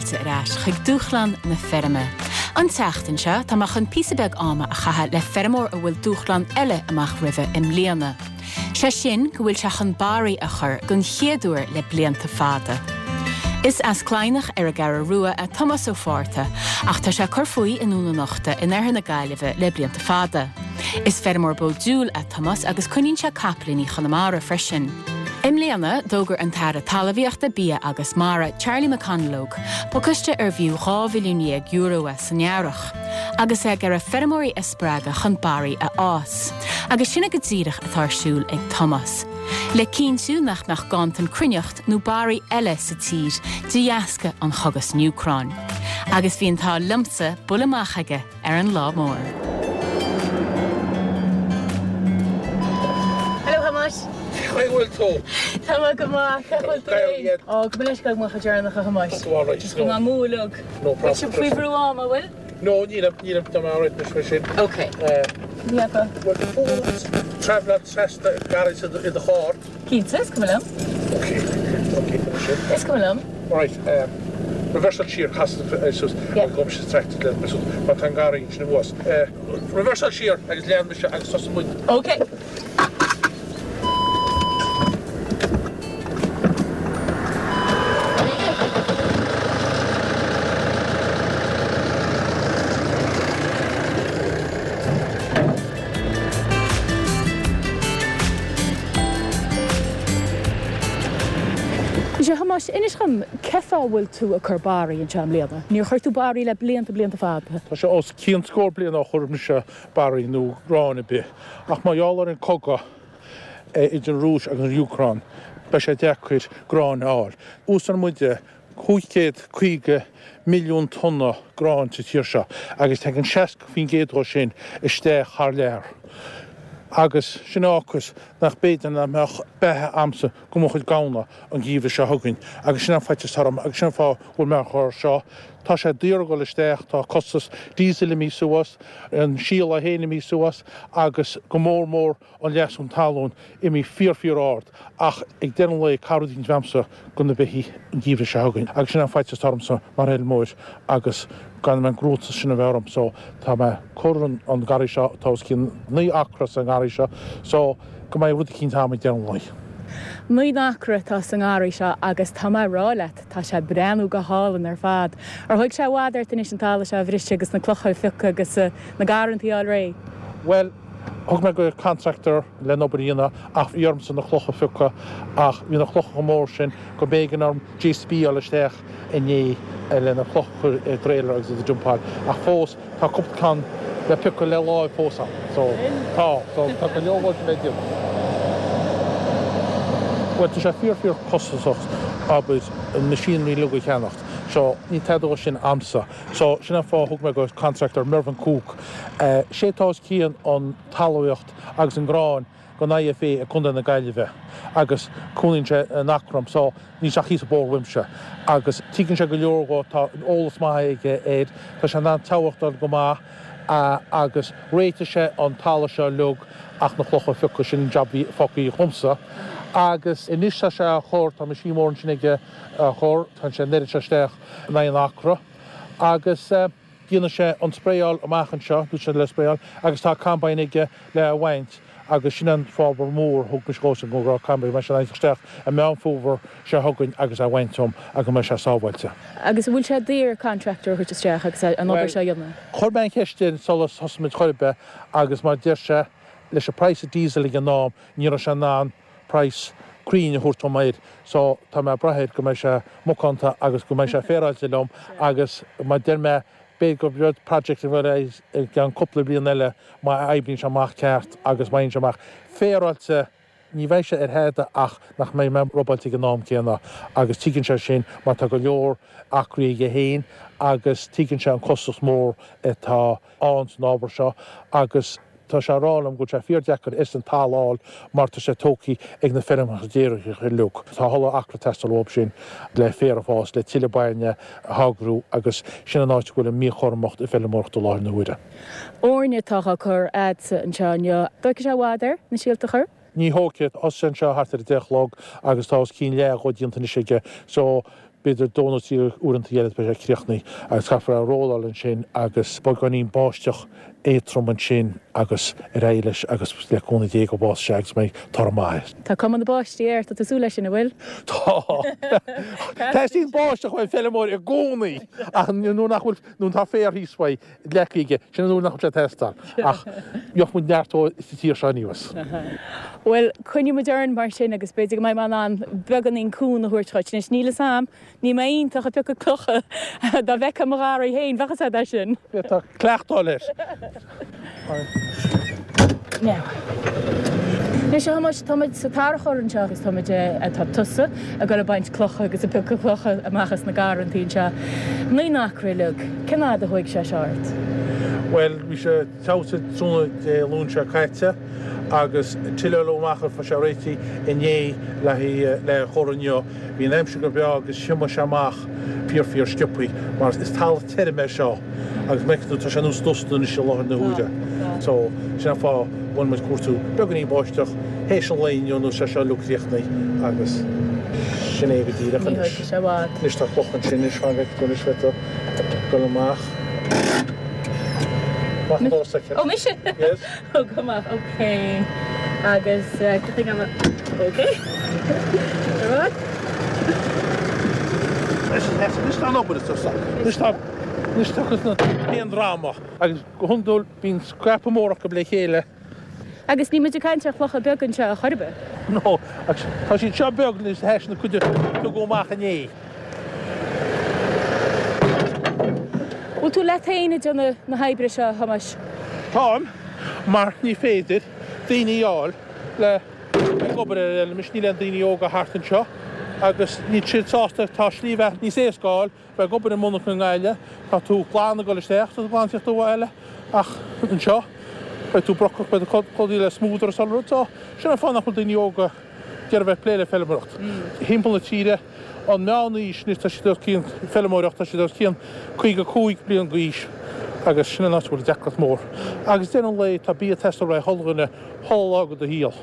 fáilte ar ais chuig Dúshlán na Feirme. An tseachtain seo, tá mé chun píosa beag ama a chaitheamh le feirmeoir a bhfuil dúshlán eile amach roimhe i mbliana. Sé sin go bhfuil sé chun barraí a chur don chéad uair le blianta fada. Is as Cladhnach ar an gCeathrú Rua é Tomás Ó Fátharta ach tá sé ag cur faoi i nDún an Uchta in oirthear na Gaillimhe le blianta fada. Is feirmeoir bó diúil é Tomás agus coinníonn sé capaillíní Chonamara freisin. I mbliana, d'fhógair an tAire Talmhaíochta, Bia agus Mara, Charlie McConalogue, pacáiste arbh fhiú €12 bhilliún é san earrach, agus é ag iarraidh feirmeoirí a spreagadh chun barraí a fhás. Agus sin é go díreach atá ar siúl ag Tomás. Le cinntiú nach mbeadh ganntan cruithneacht nó barraí eile sa tír de dheasca an chogaidh san Úcráin. Agus bhí an t-ádh liomsa bualadh amach aige ar an lá mór. Hello Thomáis. Cén chaoi a bhfuil tú? Tá mé go maith, cén chaoi a bhfuil tú féin? Ó, gabh mo leithscéal go mbeadh deireanach a Thomáis. Tá tú alright. Just go mbeadh mó uilig. No problem. Bhfuil sibh faoi bhrú ama, an bhfuil? No, nílim, nílim, tá mé alright anois mar sin. Ok. Ní fheadar. Bhfuil fón travelláil trasna garraí i do charr? Cinnte, is cuma liom. Ok, ok, sin. Is cuma liom. Right, um, reversáil siar, cas suas, agus gabhfaidh mise tractor le suas, mar tá an garraí ansin thuas. Uh, reversáil siar agus lean mise agus tosaigh muid. Ok. Sea, Thomáis, inis dhom, cén fáth a bhfuil tú ag cur barraí anseo i mbliana? Níor chuir tú barraí le blianta, blianta fada. Tá sé os cionn scór bliain ó chuir mise barraí nó grán ar bith, ach mar gheall ar an cogadh idir an Rúis agus an Úcráin, beidh sé deacair grán a fháil. Úsáideann muide 550 milliún tonna gráin sa tír seo agus tagann 60% dhó sin isteach thar lear. Agus sin a fhágfas nach b'fhéidir nach mbeadh beatha a'msa go mo chuid gamhna an geimhreadh seo chugainn agus sin an faitíos orm agus sin an fáth a bhfuil mé á chur seo. Tá sé daor a dhul isteach, tá costas diesel imithe suas, an síol é féin imithe suas agus go mór mór an leasú talún imithe fíor fíor ard ach ag deireadh an lae caithfidh rud éicint a bheith a'msa go na beithígh an geimhreadh seo chugainn agus sin an faitíos atá ormsa mar fheilmeoir agus gan an gcruatas sin a bheith orm so tá mé cur an an garraí seo tá os cionn 9 acra sa ngarraí seo so go mbeidh rud eicínt a'm ag deireadh an lae. 9 n-acra atá sa ngarraí seo agus tá mé ag rá leat tá sé ag breathnú go hálainn ar fad. Ar thóg sé i bhfad ort anois an talamh seo a bhriseadh agus na clocha a phiocadh agus na garrantaí a fháil réidh? Bhuel, thug mé go contractor len obair a dhéanamh ach bhí ormsa na clocha a phiocadh ach bhí na clocha chomh mór sin go mb'éigean orm JCB a fháil isteach inné le na clocha a chur i dtrailer agus iad a dumpáil ach fós tá cúpla ceann le piocadh le láimh fós ann so tá so tá go leor oibre le déanamh. Bhuel tá sé fíor fíor costasach abair an machinery uilig a cheannacht so níl tada dhó sin a'msa. So, sin an fáth a thug mé go contractor Mervyn Cooke. Sé atá os cionn an talmhaíocht agus an grán don IFA i gContae na Gaillimhe agus cónaíonn sé in Eachroim so níl sé ach thíos an bóthar uaimse agus tuigeann sé go leor dhó, tá eolas maith aige air, tá sé in ann teagmháil go maith agus réitigh sé an talamh seo uilig ach na clocha a phiocadh, sin an job a bhí fágtha dhomsa. Agus anois tá sé á chur, tá machine mór ansin aige á chur, tá sé an oiread seo isteach in aghaidh an acra agus déanfaidh sé an spraeáil amach anseo, dúirt sé le spraeáil, agus tá combine aige le a bhaint agus sin an fábhar mór a thug mise dhósan go raibh combine, go mbeidh sé in ann isteach i Meán Fómhair seo chugainn agus é bhaint dom agus go mbeidh sé sábháilte. Agus an bhfuil sé daor contractor a thabhairt isteach agus an obair seo a dhéanamh? Chuir mé an cheist air sular thosaigh muid chor ar bith agus mar deir sé leis an praghas diesel ag an am ní raibh sé in ann praghas cruinn a thabhairt dom air so tá mé ag brath air go mbeidh sé macánta agus go mbeidh sé féaráilte liom agus mar deir mé b'fhéidir gur rud project a bheidh i gceann cúpla bliain eile má oibríonn sé amach ceart agus má fhaigheann sé amach féaráilte ní bheidh sé ar thada ach nach mbeidh mé robáilte ag an am céanna agus tuigeann sé sin mar tá go leor acraí aige féin agus tuigeann sé an costas mór atá ann san ábhar seo agus tá sé ag rá liom go bhfuil sé fíor-deacair is an talamh a fháil mar tá sé tógtha ag na feirmeacha déiríocha uilig. Tá a thuilleadh acra ag teastáil uathu sin le féar a fhás, le tuilleadh bainne a tháirgiú agus sin an áit a bhfuil an mhíchothromacht i bhfeilmeoireacht i láthair na huaire. Eorna atá á cur a'dsa anseo inniu. Dtógfaidh sé i bhfad air na síolta a chur? Ní thógfaidh. Thosaigh sé anseo thart ar a 10 a chlog agus tá os cionn leath dhó déanta anois aige so. B'fhéidir dó nó trí uaireanta eile beidh sé críochnaithe agus caithfear é a rolláil ansin agus beagáinín báisteach éadtrom ansin agus ar aghaidh leis agus le cúnamh Dé go bhfásfaidh sé agus mbeidh toradh maith air. Tá cuma na báistí air, tá tú ag súil leis sin, an bhfuil? Tá. Teastaíonn báisteach uaidh an feilméara i gcónaí ach nuair nach bhfuil, nuair atá féar thíos uaidh, leagtha aige, sin an uair nach bhfuil sé ag teastáil. Ach gheobhaidh muid neart dó sa tír seo anuas. Bhuel, coinneoidh muid orainn mar sin agus b'fhéidir go mbeidh mé in ann beagáinín cúnamh a thabhairt dhuit. Anois, níl fhios a'm, níl mé iontach ag piocadh clocha. Dá bhfeicfeá mo gharraí féin, bheadh fhios a'd é sin. Tá cleachtadh air. Now. Anois, a Thomáis, tá muid sa tarrachóir anseo agus tá muid, tá tusa ag dul ag baint clocha agus ag piocadh clocha amach as na garrantaí anseo. Naoi n-acra uilig. Cén fhad a thóig sé seo ort? Bhuel, bhí sé teasa tráthnóna Dé Luain seo caite agus tuilleadh amach ar feadh sé réitithe inné le haghaidh le chur inniu. Bhí an aimsir go breá agus thiomáin sé amach fíor fíor sciobthaí mar is talamh tirim é seo agus mar a fheiceann tú tá sé nós dusta anois i láthair na huaire. So, sin an fáth a bhfuil muid ag cuartú beagáinín báisteach théis an lae inniu nó sé seo uilig críochnaithe agus sin é go díreach Ní anois. thógfaidh sé i bhfad. Anois tá cloch ansin anois fan go bhfeicfidh tú anois bheidh tú ag dul amach. Amach an doras aici. Ó mise? Yes. Ó go maith, ok. Agus cad chuige an ok. Ar aghaidh. Anois tá an obair is tusa. Anois tá anois tá cuid na haon dráma agus go hiondúil bíonn scrapa mór acu le chéile. Agus níl muid ag caint ar chlocha beaga anseo a chor ar bith. No, agus tá siad seo beag anois théis na cuid a tugadh amach inné. Bhfuil tú leat féin ag déanamh na hoibre seo, a Thomáis? Táim, mar ní féidir daoine a fháil le ag obair ar an fheilm anois, níl aon daoine óga thart anseo agus níl siad sásta, tá slí bheatha níos éasca a fháil bheith ag obair i monarcha i nGaillimh, tá tú glan ag dul isteach, tá tú glan ag tíocht abhaile ach anseo beidh tú brocach, beidh tú clúdaithe le smúdar is uile rud, so sin an fáth nach bhfuil daoine óga ag iarraidh bheith ag plé le feilméaracht. Thimpeall na tíre, an meán aois anois tá siad os cionn feilméaracht, tá siad os cionn 55 bliain d'aois agus sin an áit a bhfuil deacracht mór. Agus deireadh an lae tá bia ag teastáil ó chuile dhuine chuile lá de do shaol.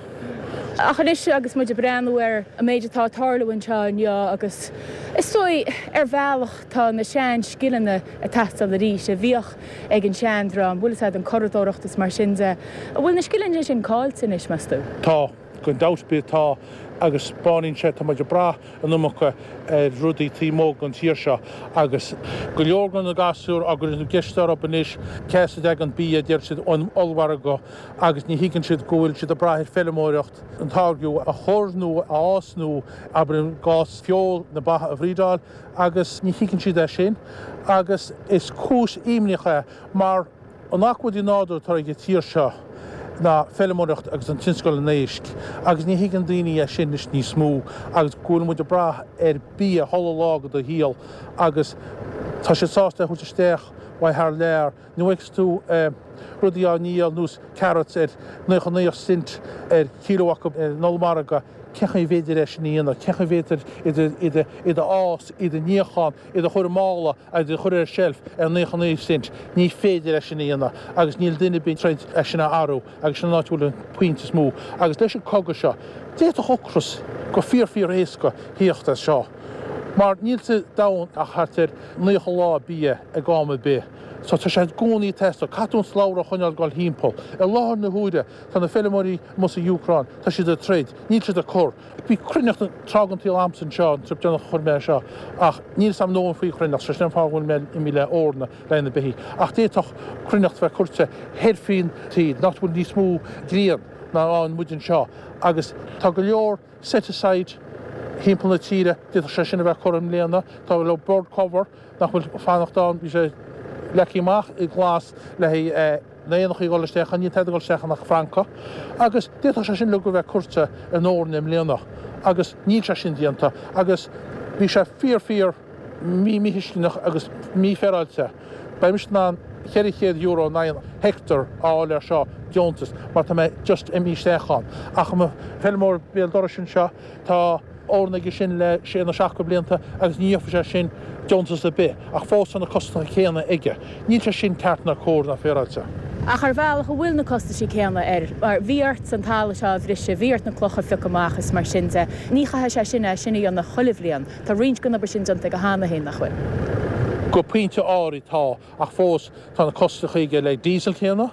Ach anois agus muid ag breathnú ar an méid atá ag tarlú anseo inniu agus is dóigh ar bhealach tá na sean scileanna ag teastáil arís a bhíodh ag an seandream, bhfuil fhios a'd, an curadóireacht is mar sin de. An bhfuil na scileanna sin caillte anois, meas tú? Tá, gan dabht ar bith tá agus baineann sé, tá muid ag brath an iomarca ar rudaí taobh amuigh den tír seo agus go leor de na gasúir á gcur na gceist orthu anois cé as a dtagann bia, deir siad ón ollmhargadh agus ní thuigeann siad go bhfuil siad ag brath ar feilméaracht an táirgeadh a chur nó a fhás nó abair i gcás feoil na ba a bhrídeáil agus ní thuigeann siad é sin agus is cúis imníoch é mar an acmhainn nádúrtha atá ag an tír seo ná feilméaracht agus an tionscal an éisc agus ní thuigeann daoine é sin anois níos mó agus go bhfuil muid ag brath ar bia chuile lá de do shaol agus tá siad sásta é a thabhairt isteach ó thar lear. Nuair a fheiceas tú rudaí á ndíol nós carrots ar 99 cent ar kilo acu ar an ollmhargadh, cén chaoi a bhféidir é sin a dhéanamh? Cén chaoi a bhféidir iad a fhás, iad a níochán, iad a chur i mála agus iad a chur ar shelf ar 99 cent? Ní féidir é sin a dhéanamh agus níl duine ar bith ag troid é sin a athrú agus sin an áit a bhfuil an pointe is mó. Agus leis an cogadh seo, d'fhéadfadh ocras go fíor fíor éasca thíocht as seo mar níl sa domhan ach thart ar 90 lá bia ag am ar bith. So tá sé i gcónaí ag teastáil. Caithfidh tú an slabhra a choinneáil ag dul thimpeall. I láthair na huaire, tá na feilméaraí amuigh sa Úcráin, tá siad ag troid, níl siad ag cur. Bhí cruithneacht tráth den tsaol a'msa anseo, an trip deireanach a chuir mé é seo, ach níl 'fhios a'm ndóthain faoi chruithneacht, so sin an fáth go bhfuil mé imithe le Orna le na beithígh. Ach d'fhéadfadh cruithneacht bheith curtha thoir faoin taobh, nach bhfuil níos mó grian ná ann muid anseo, agus tá go leor set aside thimpeall na tíre, d'fhéadfadh sé sin a bheith curtha i mbliana, tá go leor bird cover, nach bhfuil fanacht ann, bhí sé leagtha amach i nglas le haghaidh na éanachaí a dhul isteach ann, níl tada ag dul isteach ann ach francaigh, agus d'fhéadfadh sé sin uilig a bheith curtha in Órna i mbliana, agus níl sé sin déanta, agus bhí sé fíor fíor mí-mhíthuisceanach agus mífhéaráilte. Beidh mise in ann €400 in aghaidh an heicteár a fháil air seo, deontas, mar tá mé just imithe isteach ann. Ach mo feilméara béal dorais anseo, Tá eorna aige sin le sé nó seacht de bhlianta agus ní gheobhaidh sé sin deontas ar bith, ach fós tá na costacha céanna aige. Níl sé sin ceart ná cóir ná féaráilte. Ach ar bhealach an bhfuil na costaisí céanna air, mar bhí ort an talamh seo a bhriseadh, bhí ort na clocha a phiocadh amach is mar sin de. Ní chaithfidh sé sin é sin a dhéanamh chuile bhliain. Tá roinnt den obair sin déanta aige cheana féin, nach bhfuil? Go pointe áirid tá, ach fós tá na costaisí aige le diesel céanna,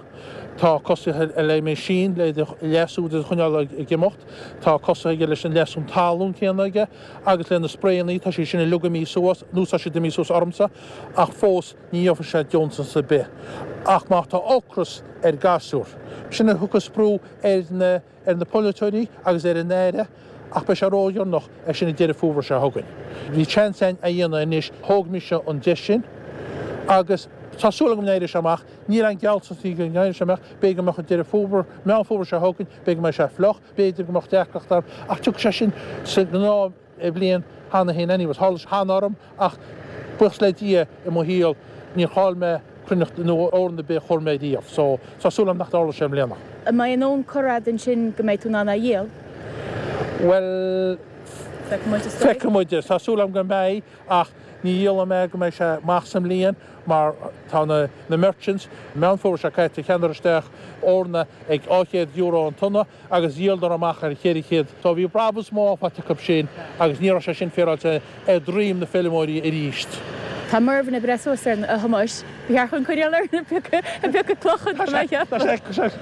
tá costaisí le machine le leasú do choinneáil ag imeacht, tá costaisí aige leis an leasú talún céanna aige agus le na sprayannaí, tá siad sin uilig imithe suas, nó tá siad imithe suas ormsa, ach fós. Ní gheobhaidh sé deontas ar bith ach má tá ocras ar gasúr. Sin a thiocfas brú ar na ar na polaiteoirí agus ar an Aire ach beidh sé ródheireanach é sin an Deireadh Fómhair seo chugainn. Bhí seans againn a dhéanamh anois, thóg mise an deis sin agus tá súil agam go n-éireoidh sé amach. Níl aon gealltanas go n-éireoidh sé amach, b'fhéidir go mbeadh an Deireadh Fómhair, Meán Fómhair seo chugainn, b'fhéidir go mbeidh sé fliuch, b'fhéidir go mbeadh deacracht ann ach tiocfaidh sé sin sa ghnáth bhliain cheana féin anyways. Tharla sé cheana orm ach buíochas le Dia i mo shaol níor chaill mé cruithneacht nó eorna ar bith a chuir mé riamh so tá súil agam nach dtarlóidh sé i mbliana. An mbeidh an fhonn curtha agat ansin go mbeidh tú in ann é a dhíol? Bhuel, feicfidh muid. Tá súil agam go mbeidh ach ní dhíolfaidh mé go mbeidh sé amach sa mbliain mar tá na na merchants, Meán Fómhair seo caite, cheannaíodar isteach eorna ag €200 an tonna agus dhíoladar amach ar 400. So bhí brabús maith faighte acu sin agus ní raibh sé sin féaráilte ar dhroim na feilméaraí arís. Tá Mervyn ag breith suas air, a Thomáis. Ba cheart dhúinn coinneáil air ag piocadh clocha, tá mé a cheapadh.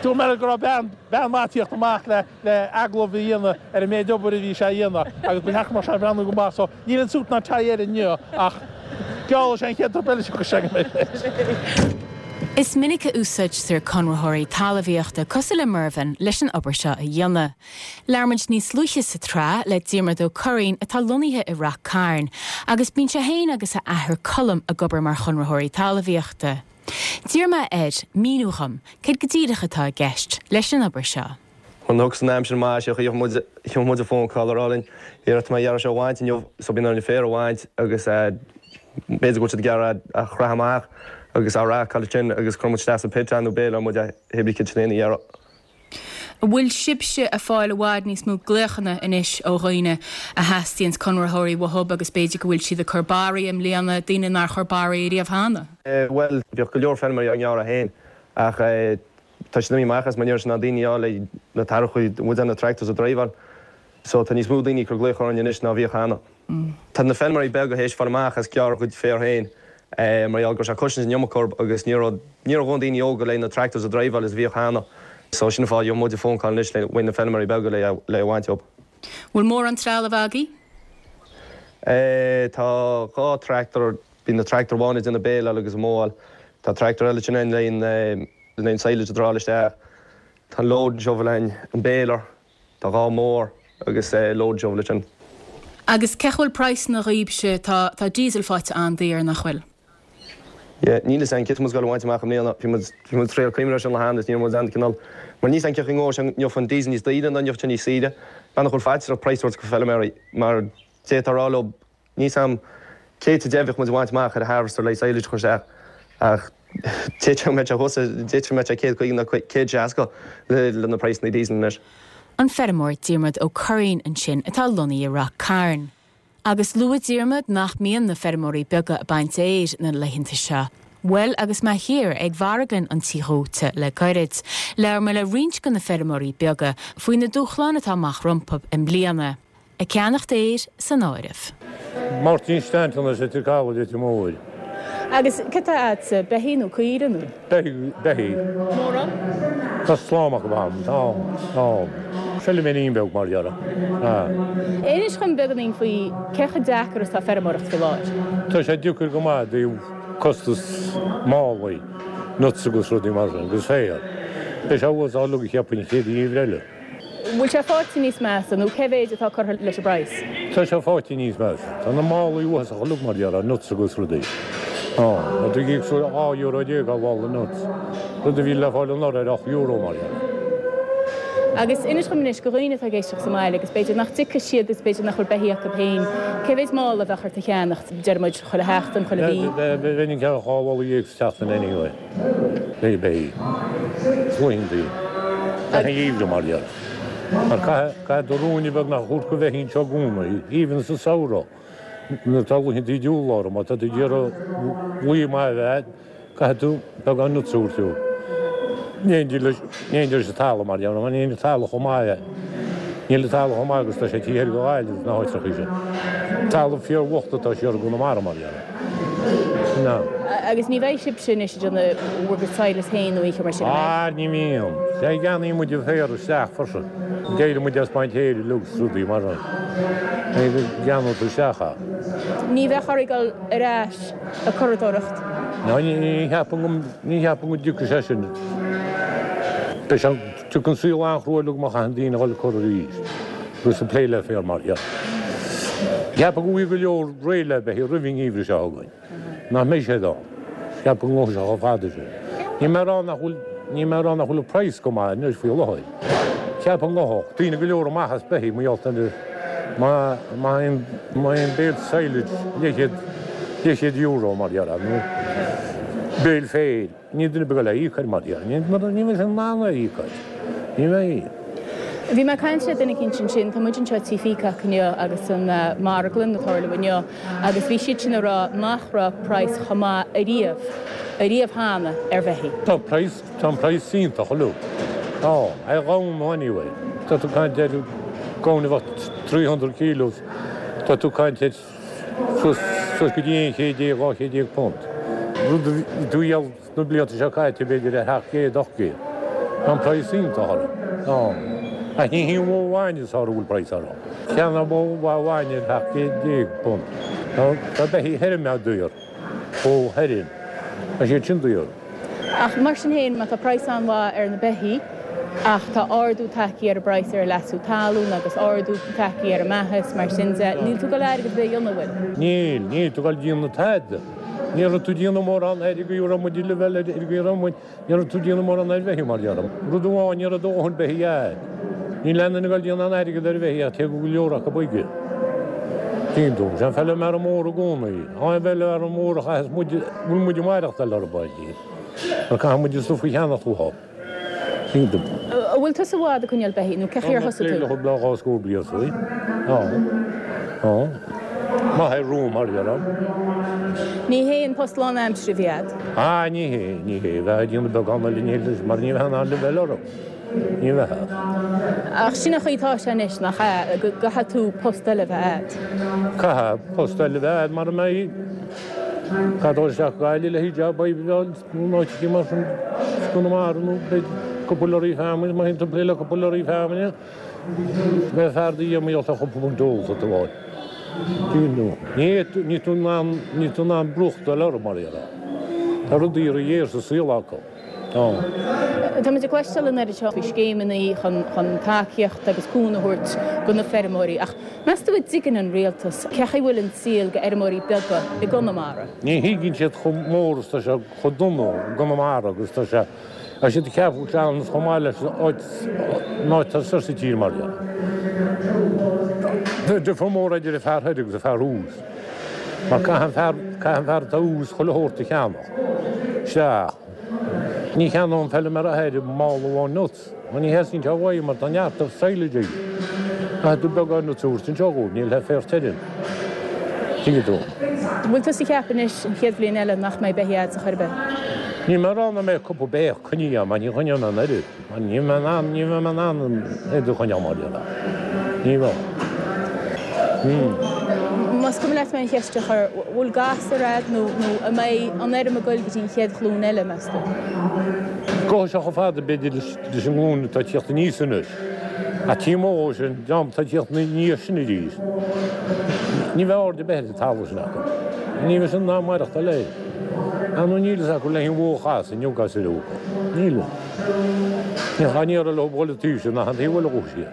Dúirt mé go raibh bean bean mhaith ag tíocht amach le le agallamh a dhéanamh ar an méid obair a bhí sé a dhéanamh agus ba cheart go mbeadh sé ag breathnú go maith so níl an suit ná tie air inniu ach geall leis an chéad trip eile seo go mbeidh. Is minic a úsáidtear conraitheoirí talmhaíochta cosúil le Mervyn leis an obair seo a dhéanamh. Labhair muid níos luaithe sa tsraith le Diarmuid Ó Curraoin atá lonnaithe i Rath Cairn agus bíonn sé féin agus a athair Colm ag obair mar chonraitheoirí talmhaíochta. D'iarr mé air míniú dhom céard go díreach atá i gceist leis an obair seo. Nuair a thiocfas an aimsir maith seo gheobhaidh muid, gheobhaidh muid phone call a rá linn, here tá mé ag iarraidh seo a bhaint inniu so bíonn orainn an féar a bhaint agus b'fhéidir go bhfuil siad ag iarraidh a chroitheadh amach agus á racáil ansin agus cuireann muid isteach sa pit é nó béileáil muid é pé bith céard sin a iarraidh. An bhfuil sibhse ag fáil i bhfad níos mó glaochanna anois ó dhaoine a theastaíonns conraitheoirí uathub agus b'fhéidir go bhfuil siad ag cur barraí i mbliana, daoine nár chuir barraí ariamh cheana? Bhuel, bheadh go leor feilméaraí á ngearradh féin ach Tá siad imithe amach as mar ní raibh siad in ann daoine a fháil le na tarrachaí, muid na tractors a dhriveáil. So tá níos mó daoine ag cur glaoch orainn anois ná a bhíodh cheana. Tá na feilméaraí beaga théis fáil amach as gearradh a gcuid féir féin mar gheall go raibh sé costaint an iomarca orthu agus ní raibh ní raibh a dhóthain daoine óga le na tractors a dhriveáil is a bhíodh cheana. So sin an fáth gheobhaidh muid phone call anois le uaidh na feilméaraí beaga le le a bhaint dóibh. Bhfuil mórán trealamh agaibh? Tá 2 tractor Bíonn na tractor amháin ag déanamh béileáil agus an mowáil. Tá tractor eile ansin le an silage a drawáil isteach. Tá an loading shovel againn, an baler, tá 2 mower agus loading shovel ansin. Agus cén chaoi a bhfuil praghsanna dhaoibhse, tá tá diesel faighte an-daor, nach bhfuil? Yeah, níl fhios againn cé tá muid ag goil a bhaint amach i mbliana. Bhí muid bhí muid ag triail cuimhneamh air sin le hAnn is ní raibh muid ann cineál mar níl fhios againn cén chaoi a ngabhfaidh sé an ngeobhaidh an diesel níos daoire nó an ngeobhaidh sé níos saoire. Bean a chuir faitíos orthu praghas a thabhairt go feilméaraí mar d'fhéadfá a rá leo Níl fhios a'm cé tá deimhin bheadh muid a bhaint amach ar an harvester le silage a chur isteach ach d'fhéadfadh go mbeadh sé thuas, d'fhéadfadh go mbeadh sé 150 nó 160 le na praghsanna diesel anois. An feirmeoir Diarmuid Ó Curraoin ansin atá lonnaithe i Rath Cairn. Agus luaigh Diarmuid nach mbíonn na feirmeoirí beaga ag baint fhéir na laethanta seo. Bhuel agus mé thiar ag marglann an Tí Dhóite le gairid, labhair mé le roinnt de na feirmeoirí beaga faoi na dúshláin atá amach rompu i mbliana. Ag ceannacht fhéir san áireamh. Máirtín Stanton as Leitir Caladh, Leitir Móir. Agus cad tá a'dsa, beithígh nó caoire nó? Beithígh, beithígh. Mórán? Tá slám acu a'm, tá, tá. Feilméirín beag mar dhea, ah. Inis dhom beagáinín faoi cé chomh deacair is atá feirmeoireacht faoi láthair. Tá sé deacair go maith i dtaobh costas málaí, nuts agus rudaí mar sin, agus féar. Beidh sé uasach uilig cheapfainn an chéad gheimhreadh eile. Bhfuil sé faighte níos measa nó cé mhéid atá curtha leis an bpraghas? Tá sé faighte níos measa. Tá na málaí uafásach uilig mar dhea, nuts agus rudaí. Tá, tá tú ag íoc €12 ar mhála nuts, rud a bhí le fáil anuraidh ar €8 mar dhea. Agus inis dhom anois, do dhaoine atá ag éisteacht sa mbaile agus b'fhéidir nach dtiocfaidh siad agus b'fhéidir nach bhfuil beithígh acu féin, cé mhéid mála a bheadh ort a cheannacht, deir muid, chuile sheachtain, chuile mhí? Bheinn ag ceannach 12 mhála sa tseachtain anyway. Beidh, beidh. Laethantaí. Gach aon gheimhreadh mar dhea. Mar caithfidh, caithfidh tú ruainne beag nach a thabhairt go bheithígh anseo i gcónaí, even sa samhradh, nuair atá laethantaí diabhal orthu, má tá tú ag iarraidh lao maith a bheith agat, caithfidh tú beagán nuts a thabhairt dó. In éindí leis an talamh mar gheall, níl an talamh chomh maith, níl an talamh chomh maith agus tá sé taobh thoir de Ghaillimh sna háiteacha sin. Talamh fíorbhocht atá siar i gConamara mar gheall. Sin é. Agus ní bheidh sibhse anois ag déanamh bhur gcuid sadhlas féin nó aon cheo mar sin, an mbeidh? Ah, ní bhíonn. Sea, ceannaíonn muid an féar isteach freisin. D'éirigh muid as baint féir uilig is rudaí mar sin. Ceannaíonn tú isteach é. Ní bheadh oraibh dul ar ais ag curadóireacht? Ná ní cheapaim go, ní cheapaim go dtiocfaidh sé sin. Beidh sé, tiocfaidh an saol an-chrua uilig má chaitheann daoine a dhul ag cur arís agus ag plé le féar mar seo. Cheapaim go bhfaighidh go leor réidh le beithígh roimh an ngeimhreadh seo chugainn. Nach mbeidh sé ann. Cheapaim go ngabhfaidh sé chomh fada sin. Níl mé ag rá nach bhfuil, níl mé ag rá nach bhfuil an praghas go maith anois faoi láthair. Cheapaim go ngabhfadh daoine go leor amach as beithígh mar gheall ar má, má théann, má théann béal silage leathchéad, leathchéad euro mar dhea nó béal féir, níl duine ar bith ag dul é a íoc air mar dhea. Ní, ní bheidh sé in ann é a íoc air. Ní bheidh. Bhí mé ag caint le duine eicínt ansin, tá muid anseo i Tí Peacock inniu agus an marglann ag tarlú inniu agus bhí siad sin ag rá nach raibh praghas chomh maith ariamh, ariamh cheana ar bheithígh. Tá praghas, tá an praghas iontach uilig. Tá, ar ghamhna anyway. Tá tú ag caint ar gamhain a bheadh 300 kilos, tá tú ag caint ar suas, suas go dtí 11 12 punt. Rud a bhí tú a dhíol Sna blianta seo caite, b'fhéidir ar 700, 800. Tá an praghas iontach orthu. Tá. Ach ní hí an bhó bhainne is fearr a bhfuil praghas orthu. Cheannaigh bó mhaith bhainne ar 17 punt. Tá beithígh feirme daor. Bó feirme. Tá siad sin daor. Ach mar sin féin, má tá praghas an-mhaith ar na beithígh, ach tá ardú tagtha ar an bpraghas ar an leasú talún agus ardú tagtha ar an mbeatha is mar sin de, níl tú ag dul airgead ar bith a dhéanamh, an bhfuil? Níl. Níl tú ag dul ag déanamh tada. Ní raibh tú ag déanamh mórán ar an gcaoi a raibh muid le bheith ar an gcaoi a raibh muid, ní raibh tú ag déanamh mórán ar bheithígh mar déarfainn. Rud amháin, ní raibh do dhóthain beithígh a'd. Níl aon duine ag dul ag déanamh aon airgead ar bheithígh ach téigh go leor acu chuige. Tuigeann tú, sé an feilméara mór i gcónaí, an feilméara mór a chaitheas muid, bhfuil muid ag maireachtáil orthu, mar caithfidh muid an stuif a cheannach uathu. An bhfuil tusa i bhfad ag coinneáil beithígh nó cé chaoi ar thosaigh tú? Tá mé le dhá scór bliain faoi. Tá. Tá. Maith ar rúm mar dhea. Ní hé an post lánaimseartha a bhí a'd? Ah, ní hé, ní hé. Bheifeá ag déanamh beagán eile ní leis mar ní bheifeá in ann le bheith orthu. Ní bheifeá. Ach sin an chaoi atá sé anois, nach ea? Go gcaithfidh tú post eile a bheith a'd. Caithfidh post eile a bheith a'd mara mbeidh. Caithfidh dul isteach go Gaillimh le haghaidh job oibre a fháil. Nó in áiteachaí mar sin i gConamara nó b'fhéidir cúpla lorry feamainne, má théann tú ag plé le cúpla lorry feamainne, beidh fear do dhia mar gheall ar chúpla punt ólta tú a fháil. Ní níl tú in ann, níl tú in ann brúchtáil orthu mar dhea. Tá rudaí ródhaor sa saol acu. Tá. Tá muid ag cloisteáil an oiread seo faoi scéimeanna chun chun tacaíocht agus cúnamh a thabhairt do na feirmeoirí ach meas tú an dtuigeann an rialtas cé chaoi bhfuil an saol do fheirmeoirí beaga i gConamara? Ní thuigeann siad chomh mór is tá sé, chomh dona i gConamara agus tá sé. Tá siad ag ceapadh go bhfuil sé ann chomh maith leis an áit, an áit atá soir sa tír mar dhea. Tá difear mór idir an fear thoir agus an fear thuas. Mar caithfidh an fear, caithfidh an fear atá thuas chuile shórt a cheannach. Sea. Ní cheannóidh an feilméara thoir mála amháin nuts. Mar ní theastaíonn sé uaidh mar tá neart silage aige. Caithfidh tú beagán nuts a thabhairt anseo dhóibh, níl le féar tirim. Tuigeann tú. An bhfuil tusa ag ceapadh anois an chéad bhliain eile nach mbeidh beithígh a'd ar chor ar bith? Níl mé ag rá nach mbeidh cúpla beithíoch coinnithe agam, mar ní choinneoidh mé an oiread. Mar ní bheidh mé in ann, ní bheidh mé in ann an oiread a choinneáil mar dhea. Ní bheidh. Más cuma leat mé an cheist a chur, bhfuil gasúir a'd nó nó an mbeidh an fheirm ag goil go dtí an chéad ghlúin eile, meas tú? Gabhfaidh sé chomh fada, b'fhéidir, leis an nglúin atá ag tíocht aníos anois. Ach taobh amuigh dhó sin, dream atá ag tíocht aníos sin arís, ní bheidh aird ar bith ar an talamh sin acu. Ní bheidh siad in ann maireachtáil air. Ar ndóigh níl fhios acu le haon bhó a chasadh inniu gasúir óga. Níl. Ní éireoidh leo dhul an taobh sin ach an taobh eile dhó siar.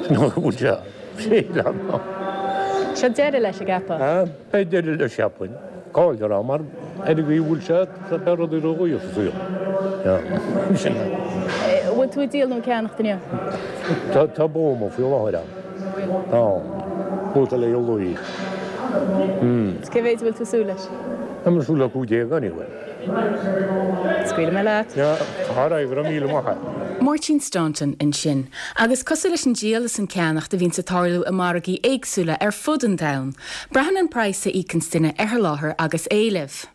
Sin an bhfuil sé. Seo deireadh leis, an gceapfá? Beidh deireadh leis, cheapfainn. Cá'il ar am, mar ar an gcaoi a bhfuil sé, tá beidh rudaí ródhaor sa saol. Sin é. Bhfuil tú ag díol nó ag ceannacht inniu? Tá, tá bó amuigh faoi láthair ann. Tá. Bó atá le dhul uaidh. Cé mhéid a bhfuil tú ag súil leis? Tá mé ag súil le 15 anyway. Scaoilfidh mé leat. Alright, go raibh míle maith agat. Máirtín Staunton ansin. Agus cosúil leis an díol is an ceannacht a bhíonns ag tarlú i margaí éagsúla ar fud an domhain, braitheann an praghas a íocanns duine ar sholáthar agus éileamh.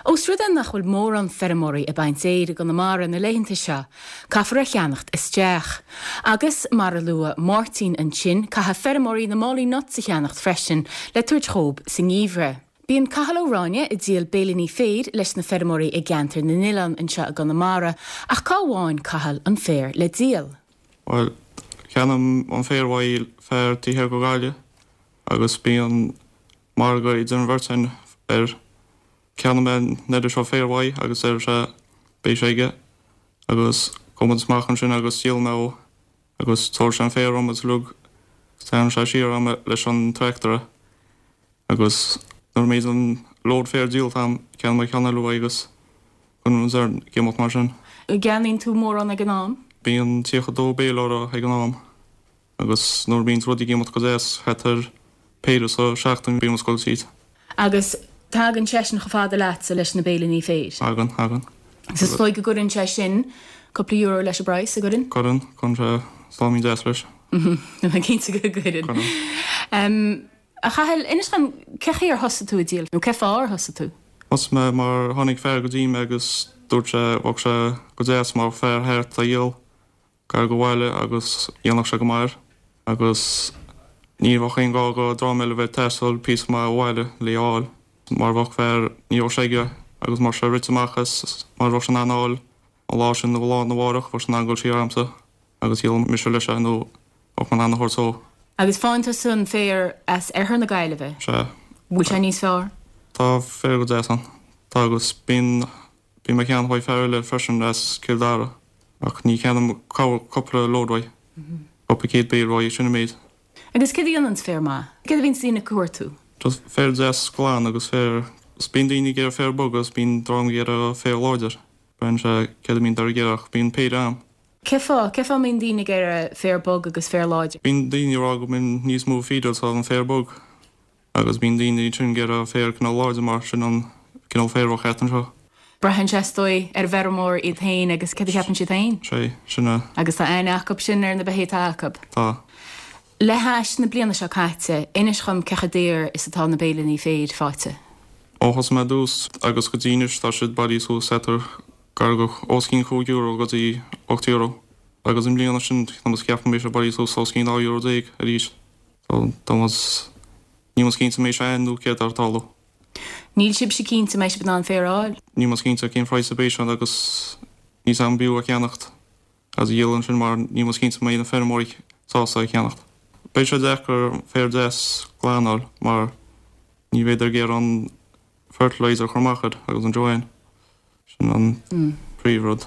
Ós rud é nach bhfuil mórán feirmeoirí ag baint fhéir i gConamara na laethanta seo, caithfear a cheannacht isteach. Agus, mar a luaigh Máirtín ansin, caithfidh feirmeoirí na málaí nuts a cheannacht freisin le tabhairt dhób sa ngeimhreadh. Bíonn Cathal Ó Ráinne ag díol béilíní féir leis na feirmeoirí i gceantar na nOileán anseo i gConamara, ach cá bhfaigheann Cathal an féar le díol? Bhuel, ceannaím an féar uaidh fear taobh thiar go Gaillimh agus bíonn margadh idir an bheirt againn air. Ceannaím mé an oiread seo féir uaidh agus deir sé beidh sé aige agus gabhann muid amach ansin agus díolann mé dhó agus tabharfaidh sé an féar dhom agus uilig agus tarraingeann sé siar agam leis an tractor é agus nuair a mbíonn an load féir díolta agam ceannaím mé ceann eile uaidh agus cuireann muid air ag imeacht mar sin. An gceannaíonn tú mórán ag an am? Bíonn 32 béile orthu ag an am. Agus nuair a bhíonns rudaí ag imeacht go deas, thart ar péire sa seachtain bíonn muid ag goil tríd. Agus tagann seisean chomh fada leatsa leis na béilíní féir? Tagann, tagann. Agus is dóigh go gcuireann sé sin cúpla euro leis an bpraghas, an gcuireann? Cuireann, cuireann sé sláimín deas leis. Tá mé cinnte go gcuireann. Cuireann. A Chathail, inis dom, cé chaoi ar thosaigh tú ag díol, nó cé fáth ar thosaigh tú? Thosaigh mé mar tháinig fear go dtí mé agus dúirt sé bheadh sé go deas má bheadh fear thart a dhíol. Gar go bhaile agus dhéanfadh sé go maith air agus ní bheadh aon ghá go dream eile bheith ag taisteal píosa maith ó bhaile le a fháil mar bheadh fear, ní bheadh sé aige agus má bheadh sé rite amach as mar bheadh sé in ann a fháil an lá sin nó lá arna mhárach bheadh sé in ann dul siar agamsa agus dhíolfadh mise leis é nó bheadh mé in ann a thabhairt dó. Agus faigheann tusa an féar as oirthear na Gaillimhe? Sea. Bhfuil sé níos fearr? Tá féar go deas ann. Tá agus bíonn Bím ag ceannach uaidh fear eile freisin as Cill Dara ach ní cheannaím cúpla load uaidh, cúpla céad béil uaidh, sin an méid. Agus céard a dhéananns féar maith? Céard a bhíonns daoine ag cuartú? Just féar deas glan agus féar, 's bíonn daoine ag iarraidh féar bog agus bíonn dream ag iarraidh féar láidir. Braitheann sé céard a bhíonn ag iarraidh ach bíonn péire a'm. Cé fáth? Cé fáth a mbíonn daoine ag iarraidh féar bog agus féar láidir? Bíonn daoine ag rá go mbíonn níos mó feed sa an féar bog. Agus bíonn daoine ansin ag iarraidh féar cineál láidir mar sin an cineál féir a bheadh thart anseo. Braitheann sé is dóigh ar an bhfeirmeoir iad féin agus céard a cheapann siad féin. Sé, sin é. Agus tá aithne acu sin ar na beithígh atá acu. Tá. Le hais na bliana seo caite, inis dhom cé chomh daor is atá na béilíní féir faighte. Ó thosaigh mé ar dtús agus go dtí anois tá siad bailithe suas thart ar gar go os cionn €5 go dtí €8. Agus i mbliana sin tá muid ag ceapadh go mbeidh sé bailithe suas os cionn €12 arís. Tá muid, níl muid cinnte an mbeidh sé ann nó céard atá ag tarlú. Níl sibhse cinnte an mbeidh sibh in ann féar a fháil? Níl muid cinnte cén praghas a beidh sé agus níl 's a'm an b'fhiú a cheannacht agus a dhíol ansin mar níl muid cinnte an mbeidh na feirmeoirí sásta a cheannacht. Beidh sé deacair féar deas glan a fháil mar ní bheidh ag iarraidh an fertilizer a chur amach air agus an joanne. Sin an príomhrud.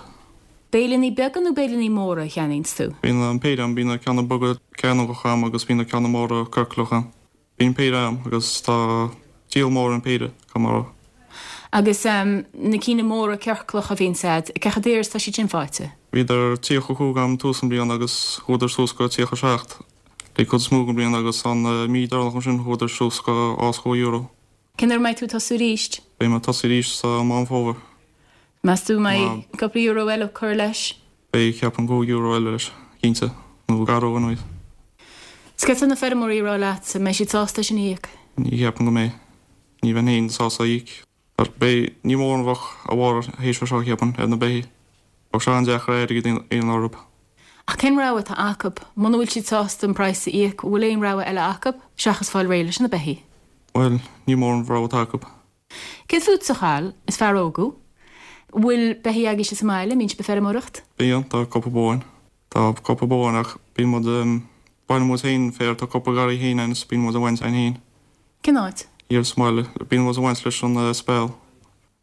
Béilíní beaga nó béilíní móra a cheannaíonns tú? Bíonn an péire a'm, bíonn na ceanna beaga cearnógacha a'm agus bíonn na ceanna móra ciorclacha a'm. Bíonn péire a'm agus tá díol mór ar an péire, caithfidh mé a rá. Agus na cinn móra ciorclacha a bhíonns a'd, cé chomh daor is atá siad sin faighte? Bhíodar 35 a'm tús an bliana agus chuadar suas go 37 le cuid is mó den bhliain agus an mí deireanach ansin chuadar suas go os cionn euro. Cén uair a mbeidh tú ag tosú arís? Beidh mé ag tosú arís sa Meán Fómhair. Meas tú an mbeidh cúpla euro eile curtha leis? Beidh, ceapaim, 5 euro eile leis, cinnte, nó gar dó anyways. Is céard tá na feirmeoirí ag rá leatsa, an mbeidh siad sásta é sin a íoc? Ní cheapaim go mbeidh. Ní bheinn féin sásta a íoc. Ach beidh, ní mórán a bheadh a bharr théis seo, cheapfainn, ar na beithígh. Bheadh sé an-deacair airgead a dhéanamh orthu. Ach cén rogha atá acu? Muna bhfuil siad sásta an praghas a íoc, an bhfuil aon rogha eile acu seachas fáil réidh leis na beithígh? Bhuel, ní mórán rogha atá acu. Céard fútsa, a Chathail? Is fear óg thú. An bhfuil beithígh agaibhse sa mbaile? An mbíonn sibh ag feirmeoireacht? Bíonn, tá cúpla bó againn. Tá cúpla bó againn ach bíonn muid, baineann muid féin féar, tá cúpla garraí féin againn is bíonn muid ag baint againn féin. Cén áit? Thiar sa mbaile. Bíonn muid ag baint leis an speal.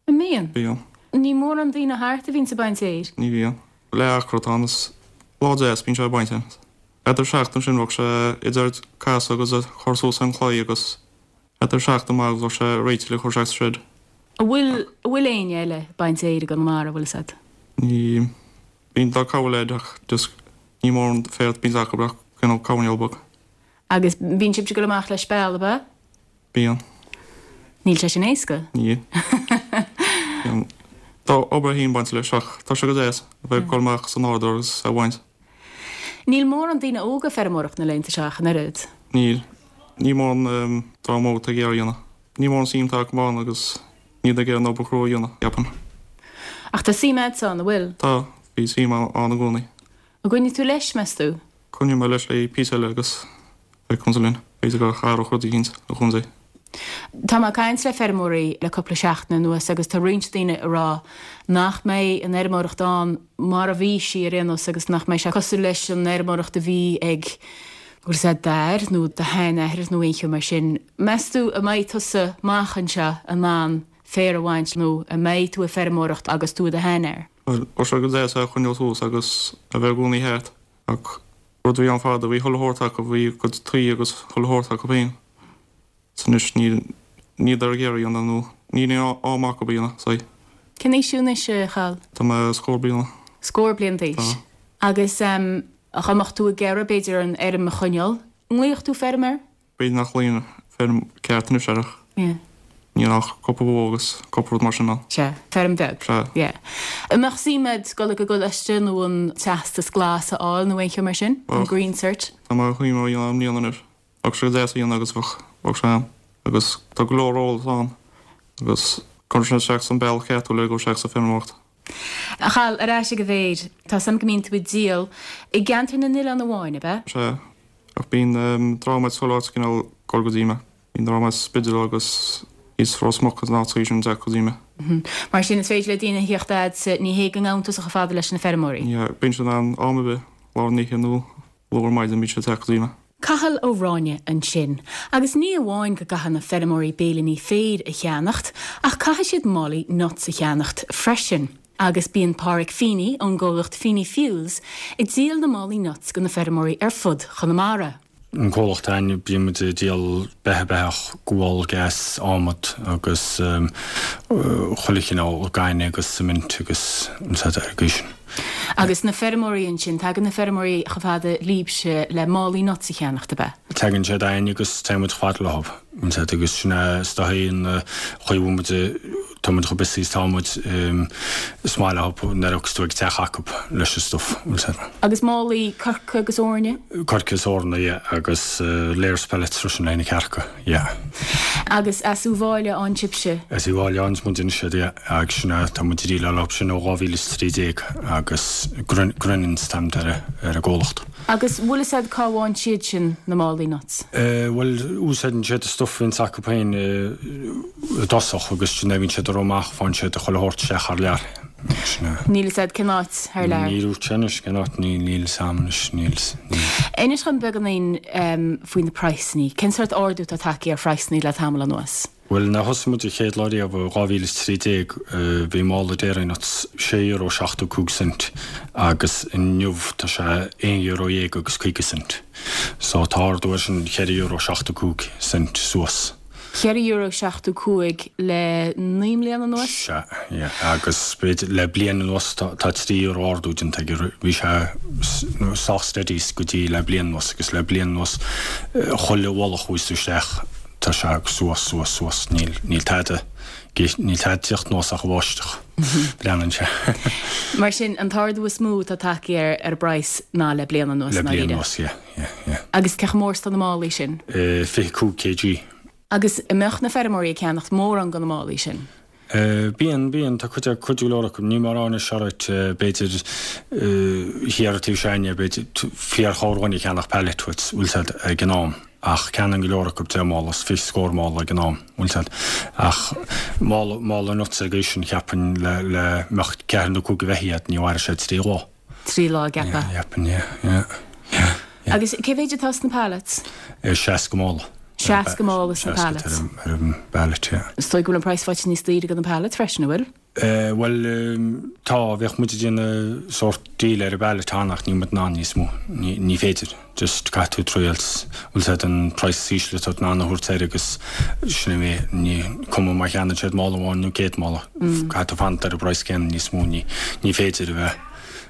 An mbíonn? Bíonn. Ní mórán daoine thart a bhíonns ag baint fhéir. Ní bhíonn. Leath acra atá ann is lá deas bíonn sé ag baint ann. Thart ar 7 ansin bheadh sé idir casadh agus a chur suas ar an chlaí agus thart ar 7 amach agus bheadh sé réitithe le cur isteach sa shed. An bhfuil, an bhfuil éinne eile ag baint fhéir i gConamara, bhfuil fhios a'd? Ní bíonn tá cúpla leaid ach just ní mórán féar a bíonns acu ach cineál coirnéal beag. Agus bíonn sibhse ag dul amach le speal, ab ea? Bíonn. Níl sé sin éasca. Níl. Bíonn. Tá obair féin bainte leis ach tá sé go deas a bheith ag dul amach sa nádúr agus a bhaint. Níl mórán daoine óga ag feirmeoireacht na laethanta seo ach an oiread. Níl. Ní mórán dream óg atá ag iarraidh a dhéanamh. Ní mórán suim atá acu ann agus. Níl ag iarraidh an obair chrua a dhéanamh, ceapaim. Ach tá suim a'dsa ann, an bhfuil? Tá, bhí suim ann i gcónaí. An gcoinneoidh tú leis, meas tú? Coinneoidh mé leis le píosa eile agus beidh contae linn. B'fhéidir go athródh rud éicint an chontae. Tá mé ag caint le feirmeoirí le cúpla seachtain anuas agus tá roinnt daoine ag rá nach mbeidh an fheirmeoireacht ann mar a bhí sí ar aon nós agus nach mbeidh sé cosúil leis an fheirmeoireacht a bhí ag bhfuil 'fhios a'd d'athair nó do sheanathair nó aon cheo mar sin. Meas tú an mbeidh tusa amach anseo in ann féar a bhaint nó an mbeidh tú ag feirmeoireacht agus tú i do sheanfhear? Bhuel, bheadh sé go deas é a choinneáil suas agus a bheith i gcónaí thart ach rud a bhí ann fada, bhí chuile shórt acu, bhí a gcuid tuí agus chuile shórt acu féin. 's anois níl, níl ag iarraidh a dhéanamh nó níl aon am acu a dhéanamh, so. Cén aois thú anois, a Chathal? Tá mé scór bliana. Scór bliain d'aois. Tá. Agus dá mbeadh tú ag iarraidh, b'fhéidir, an fheirm a choinneáil, an nglaofadh tú feirmeoir? B'fhéidir nach nglaofainn feirm ceart anois air ach Yeah. níl ach cúpla bó agus cúpla rud mar sin ann. Sea, feirm bheag. Sea. Yeah. An mbeadh suim a'd dul ag an gcoláiste nó an teastas glas a fháil nó aon cheo mar sin? An Bheadh. Green Cert? Tá mé ag cuimhneamh a dhéanamh i mbliana anois. Bheadh sé go deas a dhéanamh agus bheadh, bheadh sé ann. Agus tá go leor eolas ann agus cuireann sé isteach san bealach ceart thú le dul isteach sa feirmeoireacht. A Chathail, ar ais ag an bhféar. Tá 's a'm go mbíonn tú ag díol i gceantar na n-oileán amháin, ab ea? Sea, ach bíonn dream as chuile áit cineál ag dul go dtí mé. Bíonn dream as Spidéal agus thíos Ros Muc agus na háiteacha sin ag teacht go dtí mé. Mar sin, is féidir le daoine a thíocht a'dsa, ní hé go ngabhann tusa chomh fada leis na feirmeoirí? Yeah, bíonn siad in ann am ar bith, lár na hoíche nó luath ar maidin bíonn siad ag teacht go dtí mé. Cathal Ó Ráinne ansin. Agus ní amháin go gcaithfidh na feirmeoirí béilíní féir a cheannacht, ach caithfidh siad málaí nuts a cheannacht freisin. Agus bíonn Páraic Feeney ón gcomhlacht Feeney Fuels ag díol na málaí nuts go na feirmeoirí ar fud Chonamara. An comhlacht againn, bíonn muid ag díol beithe, beathach, gual, gas, adhmad agus chuile chineál gainne agus cement agus an said ar an gcaoi sin. Agus na feirmeoirí ansin, tagann na feirmeoirí chomh fada libhse le málaí nuts a cheannacht, ab ea? Tagann siad againn agus téann muid chomh fada leo, an said, agus sin é is dóichí an chaoi a bhfuil muid, tá muid chomh busy is tá muid, is maith leo nuair a thiocfas tú ag teach acu leis an stuff, an said. Agus málaí coirce agus eorna? Coirce is eorna, yeah, agus layers pellets freisin le na cearca. Yeah. Agus as Uíbh Fhailí a fhaigheann sibhse? As Uíbh Fhailí a fhaigheanns muid anois iad, yeah. Agus sin é, tá muid ag díleáil leo sin ó 2013 agus Grenans an t-ainm atá ar an gcomhlacht. Agus bhfuil fhios a'd cá bhfaigheann siad sin na málaí nuts? Bhuel, úsáideann siad an stuff a bhíonns acu féin i dtosach agus sin é, bhíonn siad ag rith amach, faigheann siad chuile shórt isteach thar lear. Sin é. Níl fhios a'd cén áit thar lear? Níl dúirt sé anois cén áit, níl, níl fhios a'm anois, níl, níl. Inis dhom beagáinín faoi na praghsannaí. Cén sórt ardú atá tagtha ar phraghsannaí le tamall anuas? Bhuel, nuair a thosaigh muid an chéad lá riamh i 2013, bhí mála dairy nuts €6.75 cent agus inniu tá sé €11 agus 50 cent. So tá ardú air sin €4.75 cent suas. €4.75 le 9 mbliana anuas? Sea, yeah. Agus b'fhéidir le bliain anuas tá €3 ardú déanta aige. Bhí sé sách steady go dtí le bliain anuas agus le bliain anuas chuile mhála a chuaigh tú isteach tá sé suas, suas, suas. Níl, níl tada, níl tada ag tíocht anuas ach an bháisteach. Leanann sé. Mar sin, an t-ardú is mó atá tagtha ar ar an bpraghas ná le bliain anuas, Le bliain anuas, yeah. Yeah, yeah. Agus cé chomh mór is atá na málaí sin? 25 kg. Agus an mbeadh na feirmeoirí ag ceannacht mórán de na málaí sin? Bíonn, bíonn. Tá cuid, cuid go leor acu. Níl mórán anois, alright, b'fhéidir thiar an taobh seo againne, b'fhéidir fíor-chorrdhuine ag ceannach pallet, bhfuil 'fhios a'd, ag an am. Ach ceannaíonn go leor acu deich mála is fiche scór mála ag an am, bhfuil 'fhios a'd. Ach mála, mála nuts ar an gcaoi sin, cheapfainn, le, le mbeadh ceathrar nó cúigear beithígh a'd, ní mhairfeadh sé trí lá. 3 lá a gceapadh. Yeah, cheapfainn, yeah, yeah, yeah, yeah. Agus cé mhéid atá sna pallets? 60 mála. 60 mála sna pallets. 60 ar an bpallet, yeah. Is dóigh go bhfuil an praghas faighte níos daoire do na pallets freisin, an bhfuil? Bhuel, tá, bheadh muid ag déanamh sórt deal ar an bpallet cheana ach níl muid in ann níos mó. Ní féidir. Just caithfidh tú triail, bhfuil 'fhios a'd an praghas is ísle atá tú in ann a thabhairt air agus sin é, ní cuma má cheannaíonn siad mála amháin nó 100 mála, caithfidh tú fanacht ar an bpraghas céanna níos mó, ní ní féidir a bheith,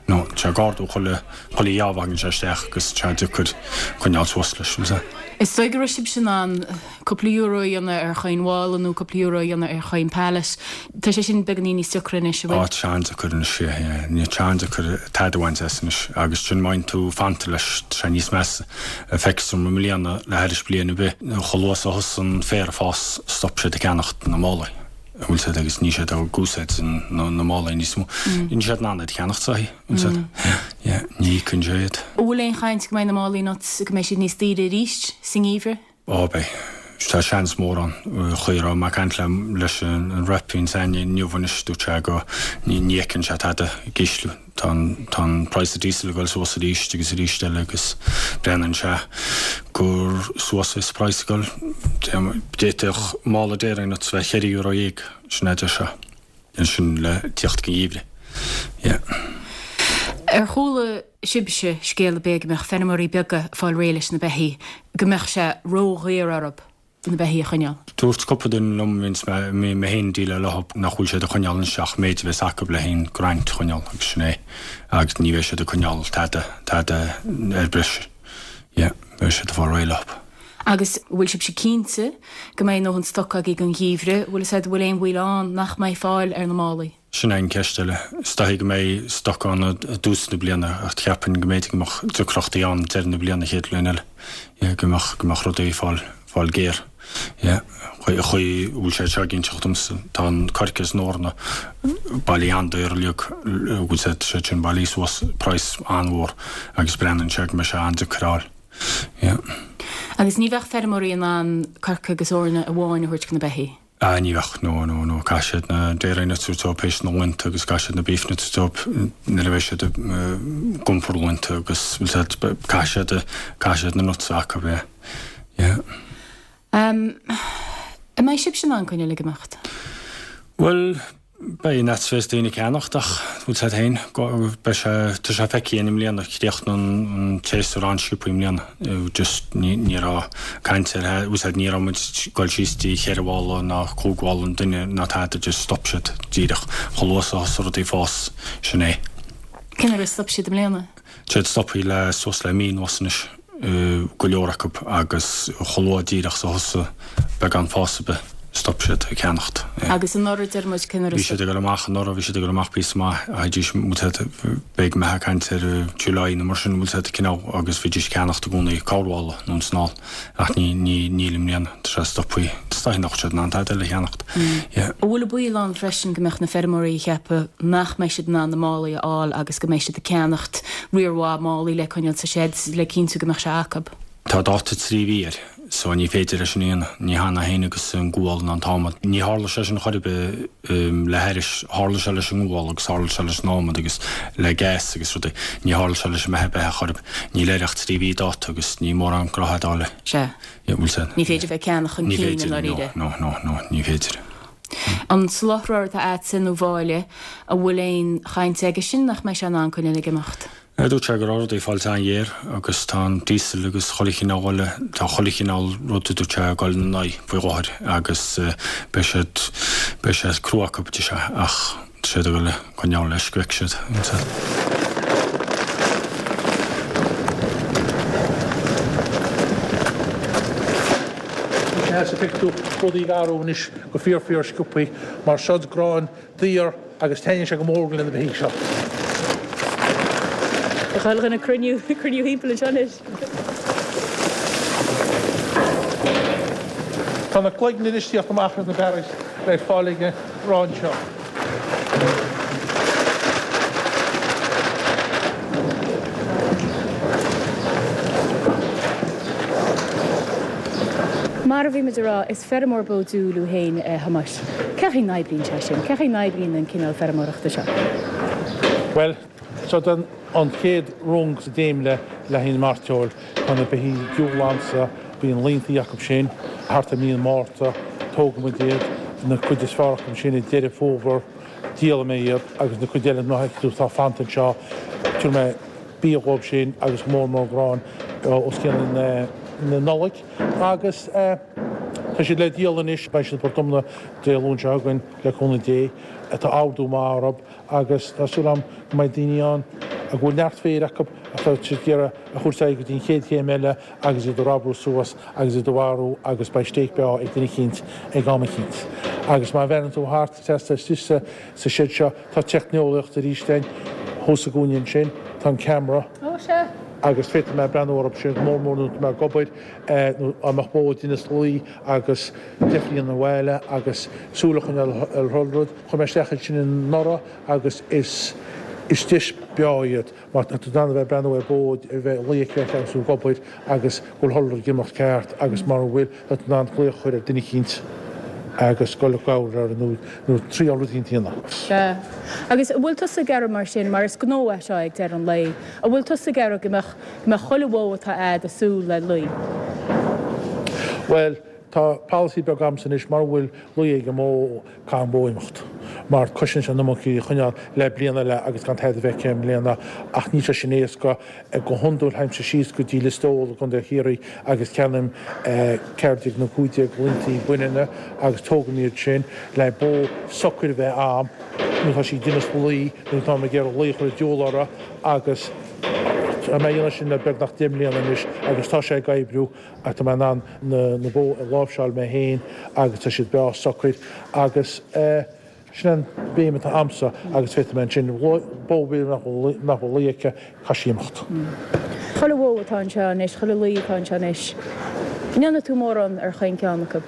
no, tá sé ag ardú chuile, chuile gheábh a thagann sé isteach agus tá sé deacair coinneáil suas leis, bhfuil 'fhios a'd. Is dóigh go raibh sibhse in ann cúpla euro a dhéanamh ar chaon mhála nó cúpla euro a dhéanamh ar chaon pallet. Tá sé sin beagáinín níos deacra anois, an bhfuil? Á, tá sé an-deacair anois, yeah, yeah. Ní, tá sé an-deacair tada a bhaint as anois agus sin má fhaigheann tú fanta leis, tá sé níos measa. Feictear dom i mbliana le thairis bliain ar bith, chomh luath is a thosaigh an féar ag fás, stop siad ag ceannacht na málaí. An bhfuil 's a'd agus níl siad ag úsáid na málaí níos mó. Níl siad in ann iad a cheannacht is dóichí, an bhfuil 's a'd. Yeah, ní íocann sé iad. An bhfuil aon chaint go mbeidh na málaí nuts, go mbeidh siad níos daoire arís sa ngeimhreadh? Ó beidh. Tá seans mór ann. Chaoi a raibh mé ag caint le leis an rep a bhíonn againn inniu anois, dúirt sé go ní fheiceann sé tada ag ísliú. Tá an tá an praghas diesel ag dul suas arís agus arís eile agus breathnaíonn sé gur suas is praghas ag dul. D'fhéadfadh mála dairy nuts bheith €14, sin é a deir sé. Sin le tíocht go geimhreadh. Yeah. Ar chuala sibhse scéal ar bith go mbeadh feirmeoirí beaga ag fáil réidh leis na beithígh, go mbeadh sé ródhaor orthu na beithígh a choinneáil? Dúirt cúpla duine liom, bhíonns mé, mé féin ag déileáil leo, nach bhfuil siad ag coinneáil anois ach méid a bheas acu le haghaidh an grant a choinneáil agus sin é. Agus ní bheidh siad ag coinneáil tada, tada ar breis. Yeah, beidh siad ag fáil réidh leo. Agus an bhfuil sibhse cinnte go mbeidh a ndóthain stoc agaibh don gheimhreadh? Bhfuil 'fhios a'd, bhfuil aon bhaol ann nach mbeidh fáil ar na málaí? Sin é an ceist eile. Is dóichí go mbeidh stoc ann i dtús na bliana ach cheapfainn go mb'fhéidir go mbeadh deacrachtaí ann deireadh na bliana chéad bhliain eile. Yeah, go mbeadh, go mbeadh rudaí ag fáil, fáil géar. Yeah, chaoi, chaoi a bhfuil sé seo ag inseacht domsa, tá an coirce is an eorna bailithe an-daor uilig, bhfuil 's a'd, siad sin bailithe suas praghas an-mhór agus breathnaíonn sé go mbeidh sé an-deacair a fháil. Yeah. Agus ní bheadh feirmeoirí in ann coirce agus eorna amháin a thabhairt do na beithígh? Ah, ní bheadh, no, no, no. Caithfidh siad na dairy nuts a thabhairt dóibh théis na laethanta agus caithfidh siad na beef nuts a thabhairt dóibh nuair a bheidh siad ag iompar laethanta agus bhfuil 's a'd, caithfidh siad, caithfidh siad na nuts a acu, yeah. Yeah. An mbeidh sibhse in ann coinneáil ag imeacht? Bhuel, beidh an fhad is bheas daoine ag ceannacht ach bhfuil 's a'd féin, beidh sé, tá sé feicthe againn i mbliana, chríochnaigh an séasúr an-sciobtha i mbliana, just ní, ní raibh caint ar, bhfuil 's a'd, ní raibh muid ag dul síos dtí cheithre mhála ná cúig mhála an duine ná tada, just stop siad díreach, chomh luath is a thosaigh rudaí ag fás, sin é. Cén uair a stop siad i mbliana? Tá siad stoptha le suas le mí anuas anois, go leor acu, agus chomh luath díreach is a thosaigh beagán fás ar bith, stop siad ag ceannacht. Agus anuraidh, deir muid, cén uair a Bhí siad ag dul amach anuraidh, bhí siad ag dul amach píosa maith, théidís, bhfuil 's a'd, beidh mé ag caint ar July nó mar sin, bhfuil 's a'd, cineál, agus bhídís ag ceannacht i gcónaí corrmhála nó an snáil. Ach ní, ní, níl i mbliana. Tá sé stoptha. Is dóichí nach bhfuil siad in ann tada eile a cheannacht. Yeah. An bhfuil an baol ann freisin go mbeadh na feirmeoirí ag ceapadh nach mbeidh siad in ann na málaí a fháil agus go mbeidh siad ag ceannacht riar mhaith málaí le coinneáil sa seid le cinntiú go mbeadh sé acu? Tá dáta 3 mhí air so ní féidir é sin a dhéanamh. Ní hann é féin agus an gual ná an t-adhmad. Ní tharla sé sin chor ar bith le haithris. Tharla sé leis an ngual agus tharla sé leis an adhmad agus le gas agus rudaí. Ní tharla sé leis an mbeatha beithe chor ar bith. Níl air ach 3 mhí dáta agus ní mórán gnótha ag dul le. Sea. Bhfuil sé. Ní féidir bheith ag ceannach chun Ní cinn i féidir, no, ndáiríre. no, no, no, ní féidir. An soláthróir atá a'dsa nó Mháille, an bhfuil aon chaint aige sin nach mbeidh sé in ann coinneáil ag imeacht? Dúirt sé go raibh rudaí ag fáilt an-ghéar agus tá an diesel agus chuile chineál eile, tá chuile chineál rud a dúirt sé ag dul ina n-aghaidh faoi láthair agus beidh siad, beidh sé crua acu, a deir sé, ach tá siad ag dul a coinneáil leis go bhfeicfidh siad. Sea, feicfidh tú rudaí ag athrú anois go fíor fíor sciobthaí mar seod grán daor agus taitníonn sé go mór le na beithígh seo. Tá chuile dhuine ag cruinniú, cruinniú thimpeall anseo anois. Tá na cloigne anois ag tíocht amach as na barraí le fáil ag an ngrán seo. Mar a bhí muid a rá, is feirmeoir bó diúil thú féin, a Thomáis. Cé chaoi n-oibríonn sé sin? Cé chaoi n-oibríonn an cineál feirmeoireachta seo? Bhuel, seo an chéad rung sa dréimire le haghaidh an mairteoil. Tá na beithígh diúl anso, bíonn laontaí acu sin thart ar mí an Mhárta, tógann muid iad, na cuid is fearr acu sin i Deireadh Fómhair, díolfaidh mé iad agus na cuid eile ná feicfidh tú atá fanta anseo, tabharfaidh mé bia dhóibh sin agus go mór mór grán os cionn na Nollag. Agus tá siad le díol anois, beidh siad i bPort Omna Dé Luain seo chugainn, le cúnamh Dé. Tá ordú maith orthu agus tá súil agam go mbeidh daoine ann a bhfuil neart féir acu atá siad ag iarraidh a thabhairt ar aghaidh go dtí an chéad chéim eile agus iad a ramhrú suas agus iad a mharú agus beidh stéig breá ag duine eicínt ag am eicínt. Agus má bhreathnaíonn tú thart trasna istigh sa seid seo tá teicneolaíocht arís againn thuas sa gcúinne ansin, tá an ceamara. Ó, sea. Agus féadfaidh mé breathnú orthu sin go mór mór nuair atá mé ag obair nó dá mbeadh bó ag déanamh lao agus deifir a dhéanamh abhaile agus súil a choinneáil ar chuile rud. Chuir mé isteach iad sin anuraidh agus is is deis breá iad mar tá tú in ann a bheith ag breathnú ar bó a bheith ag luí aici agus tú ag obair agus go bhfuil chuile rud ag imeacht ceart agus mura bhfuil tá tú in ann glaoch a chur ar duine eicínt agus dul i gcabhair orthu nó nó triail rud eicínt a dhéanamh. Sea. Agus an bhfuil tusa ag iarraidh mar sin, mar is gnó é seo ag deireadh an lae, an bhfuil tusa ag iarraidh go mbeadh, go mbeadh chuile bhó atá a'd ag súil le lao? Bhuel, tá polasaí beag a'msa anois, mura bhfuil lao ag an mbó, caithfidh an bhó imeacht mar cosnaíonn sé an iomarca í a choinneáil le bliain eile agus gan tada a bheith aici i mbliana ach níl sé sin éasca. Go hiondúil théimse síos go dtí Lios Póil i gContae Chiarraí agus ceannaím 14 nó 15 laontaí baineanna agus tógaim iad sin le bó socair a bheith a'm nuair atá sí ag déanamh lao nó táim ag iarraidh lao a chur an diabhal uirthi agus tá mé a dhéanamh sin le beagnach 10 mbliana anois agus tá sé ag oibriú. Ach tá mé in ann na bó a láimhseáil mé féin agus tá siad breá socair agus sin an bhéim atá a'msa agus féadfaidh mé ansin bó nach bhfuil lao aici, caithfidh sí imeacht. Chuile bhó atá anseo anois, chuile lao atá anseo anois, an ndéanfaidh tú mórán ar chaon ceann acu?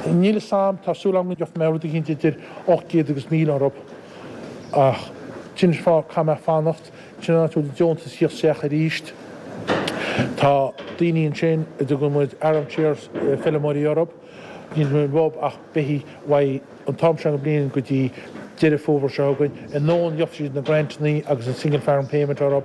Níl fhios a'm, tá súil a'm go gheobhaidh mé rud eicínt idir 800 agus 1,000 orthu ach sin an fáth caithfidh mé fanacht. Sin an áit a bhfuil an deontas ag tíocht isteach arís. Tá daoine ansin a dtugann muid armchair feilméaraí orthu. Níl muid uathu ach beithígh uaidh an t-am seo den bhliain go dtí Deireadh Fómhair seo chugainn. Anonn gheobhaidh siad na grantannaí agus an single farm payment orthu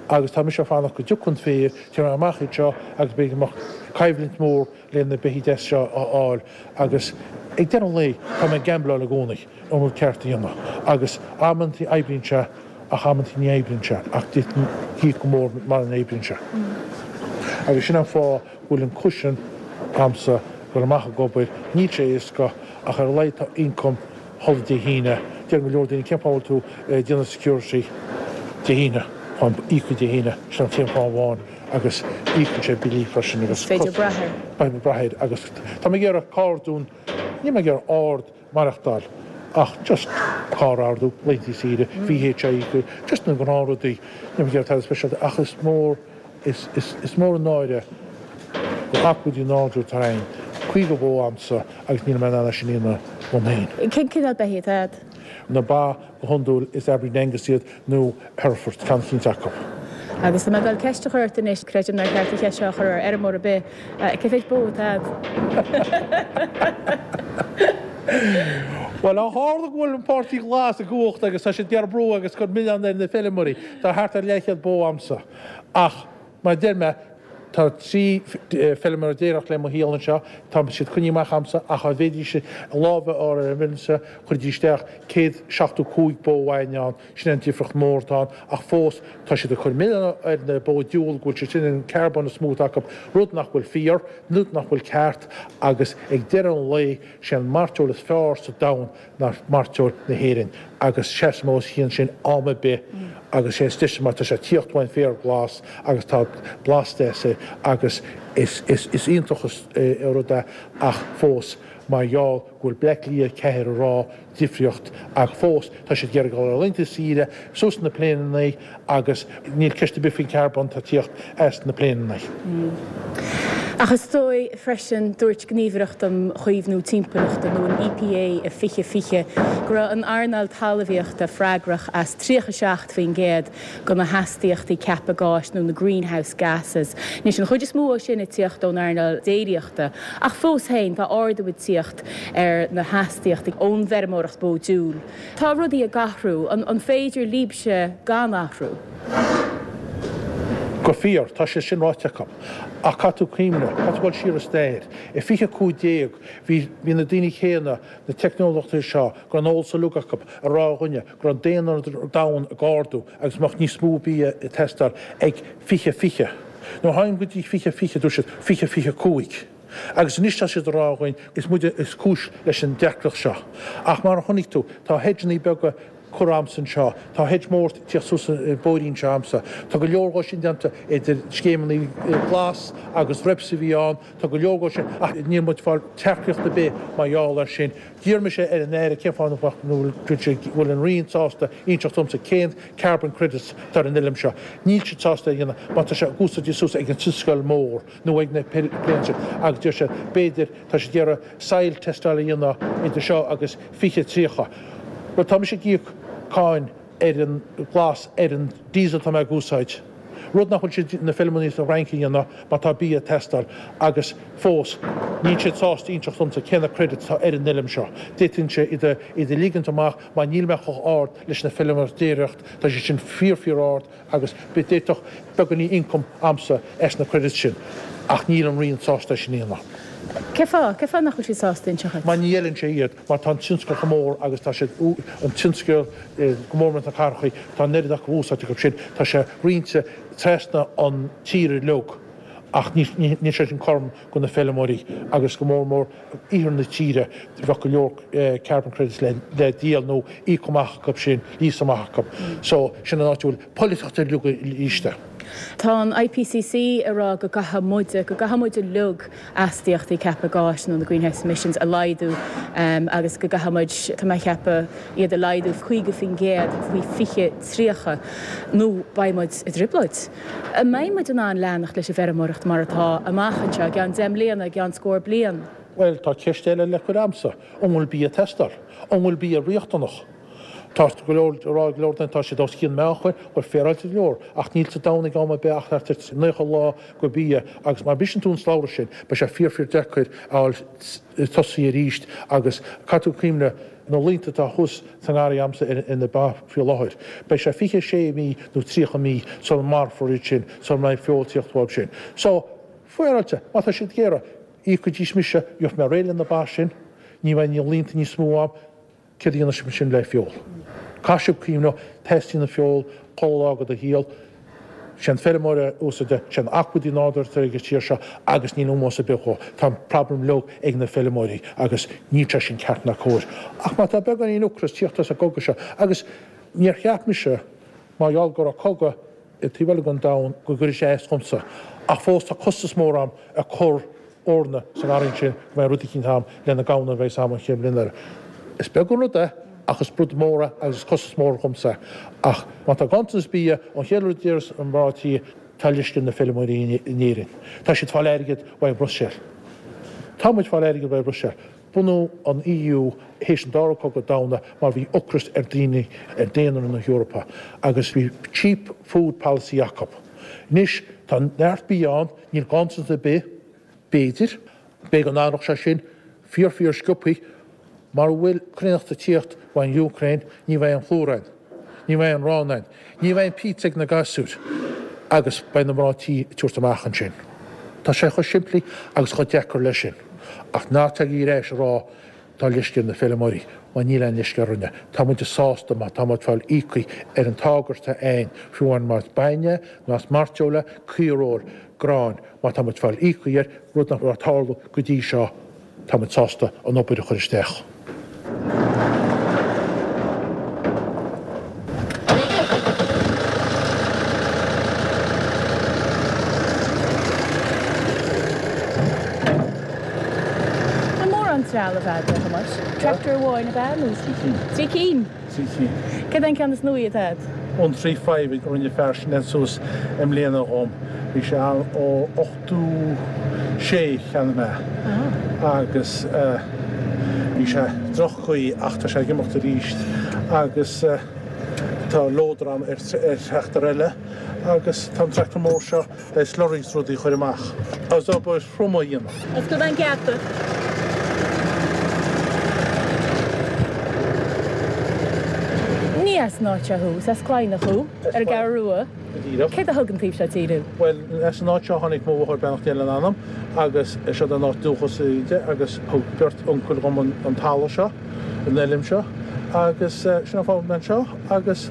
agus tá mise ag fanacht go dtiocfaidh an féar, tiocfaidh mé amach anseo agus beidh go mbeadh coimhlint mhór le na beithígh deas seo a fháil agus ag deireadh an lae tá mé ag gambláil i gcónaí an rud ceart a dhéanamh agus amantaí oibríonn sé ach amantaí ní oibríonn sé ach d'fhéadfainn íoc go mór mara n-oibríonn sé. Agus sin an fáth go bhfuil an cushion a'msa dul amach ag obair, níl sé éasca ach ar a laghad tá income chuile Dé hAoine. Deireann go leor daoine cén fáth a bhfuil tú ag déanamh security Dé hAoine? Táim íoctha Dé hAoine, sin an t-aon fáth amháin agus íocann sé billí freisin agus Is féidir brath air. Beidh brath air agus tá mé ag iarraidh carr dún, níl mé ag iarraidh ard maireachtáil ach just carr a ordú, laethanta saoire, VHI, just na gnáthrudaí, níl mé ag iarraidh tada speisialta ach is mór, is, is, is mór an náire gur acmhainní nádúir atá againn, 50 bó a'msa agus níl mé in ann é sin a dhéanamh dom féin. Cén cineál beithígh atá a'd? Na ba go hiondúil is Aberdeen Angus iad nó Hereford, ceann eicínt acu. Agus tá mé ag dul ceist a chur ort anois, creidim nár cheart an cheist seo a chur ar fheirmeoir ar bith, cé mhéid bó atá a'd? Bhuel, ó tharla go bhfuil an Páirtí Glas i gcumhacht agus tá siad ag iarraidh brú agus cur milleán ar na feirmeoirí, tá thart ar leathchéad bó a'msa. Ach, mar a deir mé, tá 13 feilméara ag éireacht le mo shaol anseo, tá siad coinnithe amach a'msa ach dá bhféadfaidís a lámh a fhár ar an bhfeirmse, chuirfidís isteach 175 bó amháin ann, sin an difríocht mór atá ann, ach fós tá siad ag cur milleán ar na bó diabhal go bhfuil siad sin an carbón is mó atá acu, rud nach bhfuil fíor, rud nach bhfuil ceart agus ag deireadh an lae, sé an mairteoil is fearr sa domhan ná mairteoil na hÉireann agus seasaim os a chionn sin am ar bith agus sé is deise mar tá sé ag tíocht uain féar glas agus tá blas deas air agus is is is iontach an rud é ach fós mar gheall go bhfuil Bleá Cliath 4 ag rá difríocht ach fós tá siad ag iarraidh dul ar laethanta saoire suas na pléineanna agus níl ceist ar bith faoin charbón atá ag tíocht as na pléineanna. Ach is dóigh freisin, dúirt Gníomhaireacht um Chaomhnú Timpeallachta, nó an EPA, i 2020 go raibh an earnáil talmhaíochta freagrach as 37% de na hastaíochtaí ceaptha gáis nó na greenhouse gases. Anois, an chuid is mó de sin ag tíocht ón earnáil déiríochta, ach fós féin, tá ardú ag tíocht ar na hastaíochtaí ón bhfeirmeoireacht bó diúil. Tá rudaí ag athrú. An féidir libhse gan athrú? Go fíor, tá sé sin ráite acu. Ach caithfidh tú cuimhneamh, caithfidh tú dul siar i stair. I 2015, bhí, bhí na daoine céanna, na teicneolaithe seo, go raibh an eolas uilig acu, ag rá dhúinne go raibh an daonra ar domhan ag ardú agus go mbeadh níos mó bia ag teastáil ag 2020. Nuair a tháinig go dtí 2020, dúirt siad 2025. Agus anois tá siad ag rá dhúinn, is muide is cúis leis an deacracht seo. Ach mar a chonaic tú, tá hedgeanna beaga. curtha a'msa anseo. Tá hedge mór ag tíocht suas an bóithrín seo a'msa. Tá go leor dhó sin déanta idir scéimeanna glas agus REPS a bhí ann. Tá go leor dhó sin ach níl muid ag fáil tacaíocht ar bith mar gheall air sin. D'iarr mise ar an Aire cén fáth nach bhfuil an Roinn sásta inseacht domsa cén carbon credits atá ar an fheilm seo. Níl siad sásta é a dhéanamh mar tá sé úsáidte suas ag an tionscal mór nó ag na planes sin agus deir siad b'fhéidir tá siad ag iarraidh soil teisteáil a dhéanamh idir seo agus 2030. Bhuel tá mise ag íoc cáin ar an ghlas ar an diesel atá mé ag úsáid, rud nach bhfuil siad, na feilmeoirí sa Fhrainc a dhéanamh mar tá bia ag teastáil agus fós níl siad sásta inseacht domsa cé na credits atá ar an fheilm seo. D'fhéadfainnse iad a iad a ligint amach mar níl mé chomh ard leis na feilmeoirí déiríocht, tá siad sin fíor fíor ard agus d'fhéadfadh beagáinín income a'msa as na credits sin ach níl an Roinn sásta é sin a dhéanamh. Cé fáth? Cé fáth nach bhfuil siad sásta inseacht dhuit? Mar ní fheileann sé iad, mar tá an tionscal chomh mór agus tá siad, an tionscal go mór mór sna cathrachaí, tá an oiread acu úsáid acu sin, tá sé roinnte trasna an tír uilig ach níl sé sin cothrom go na feilmeoirí agus go mór mór iarthar na tíre, bheadh go leor carbon credits le díol nó íoc amach acu sin, lease amach acu. So sin an áit a bhfuil polaitíocht uilig istigh. Tá an IPCC ag rá go gcaithfidh muide, go gcaithfidh muid uilig astaíochtaí ceaptha gáis nó na greenhouse emissions a laghdú agus go gcaithfidh muid, tá mé ag ceapadh, iad a laghdú 50% faoi 2030 nó beidh muid i dtrioblóid. An mbeidh muid in ann leanacht leis an bhfeirmeoireacht mar atá amach anseo i gceann 10 mbliana, i gceann scór bliain? Bhuel, tá ceist eile le cur a'msa. An bhfuil bia ag teastáil? An bhfuil bia riachtanach? Tá go leor ag rá ag go leor daoine tá siad os cionn meánchair, bhuel féaráilte go leor, ach níl sa domhan ag am ar bith ach thart ar 90 lá go bia agus má bhriseann tú an slabhra sin beidh sé fíor fíor deacair a fháil tosaithe arís agus caithfidh tú cuimhneamh na laethanta atá thuas sa ngarraí a'msa ar na ba faoi láthair beidh sé 26 mí nó 30 mí sula marfar iad sin sula mbeidh feoil tíocht uaidh sin. So, féaráilte, má tá siad ag iarraidh, íocfaidís mise, gheobhaidh mé réidh le na ba sin, ní bheidh na laethanta níos mó a'm, Céard a dhéanfaidh sibh ansin le feoil? Caithfidh sibh cuimhneamh, teastaíonn an feoil chuile lá de do shaol. Sé an feirmeoir a úsáideann, sé an acmhainn nádúrtha atá ag an tír seo agus níl ómós ar bith dhó. Tá an problem uilig ag na feirmeoirí agus níl sé sin ceart ná cóir. Ach má tá beagáinín ocras tíocht as an gcogadh seo, agus níor cheap mise mar gheall go raibh cogadh i taobh eile den domhan go gcuirfeadh sé as dhomsa. Ach fós tá costas mór a'm ag cur eorna sa ngarraí ansin go mbeidh rud eicínt a'm le na gamhna a bheas a'm an chéad bhliain eile. Is beag an rud é ach is rud mór é agus is costas mór dhomsa é. Ach má tá ganntanas bia, an chéad rud a déarfas an mná tí, tá leisce ar na feilméaraí in Éirinn. Tá siad fáil airgead uaidh Bruiséil. Tá muid fáil airgead uaidh Bruiséil. Bunú an EU théis an Dara Cogadh Domhanda mar bhí ocras ar daoine, ar daonra na hEorpa agus bhí cheap food policy acu. Anois tá neart bia ann, níl ganntanas ar bith, b'fhéidir, b'fhéidir go n-athródh sé sin fíor fíor sciobthaí, mara bhfuil cruithneacht ag tíocht ón Úcráin ní bheidh aon phlúr ann, ní bheidh aon arán ann, ní bheidh aon pizza ag na gasúir agus beidh na mná tí ag tabhairt amach ansin. Tá sé chomh simplí agus chomh deacair leis sin. Ach ná tagaigí ar ais ag rá tá leisce ar na feilméaraí, mar níl aon leisce orainne. Tá muid sásta má tá muid fáil íoctha ar an táirge atá a'ainn, fiú amháin más bainne, más mairteoil, caoireoil, grán, má tá muid fáil íoctha air, rud nach raibh ag tarlú go dtí seo. Tá muid sásta an obair a chur isteach. An mórán trealamh agat, a Thomáis? Tractor amháin ab ea nó? 3 cinn. 3 cinn? 3 cinn. Cad é an ceann is nuaí atá agat? An 3 5 a rinne fear sin suas i mbliana dhom. Bhí sé ann ó 86 cheannaigh mé agus bhí sé droch-chaoi ach tá sé ag imeacht arís agus tá loader a'm ar tractor eile agus tá an tractor mór seo le slurry is rudaí a chur amach agus obair throm a dhéanamh. Oscail an geata. Ní as an áit seo thú, is as Cladhnach thú, ar an gCeathrú Rua. Go díreach. Céard a thug an taobh seo tíre thú? Bhuel, as an áit seo a tháinig mo mháthair, beannacht Dé lena anam, agus seo an áit dúchas di agus thug beirt uncail dhom an talamh seo, an fheilm seo agus sin an fáth a bhfuil mé anseo agus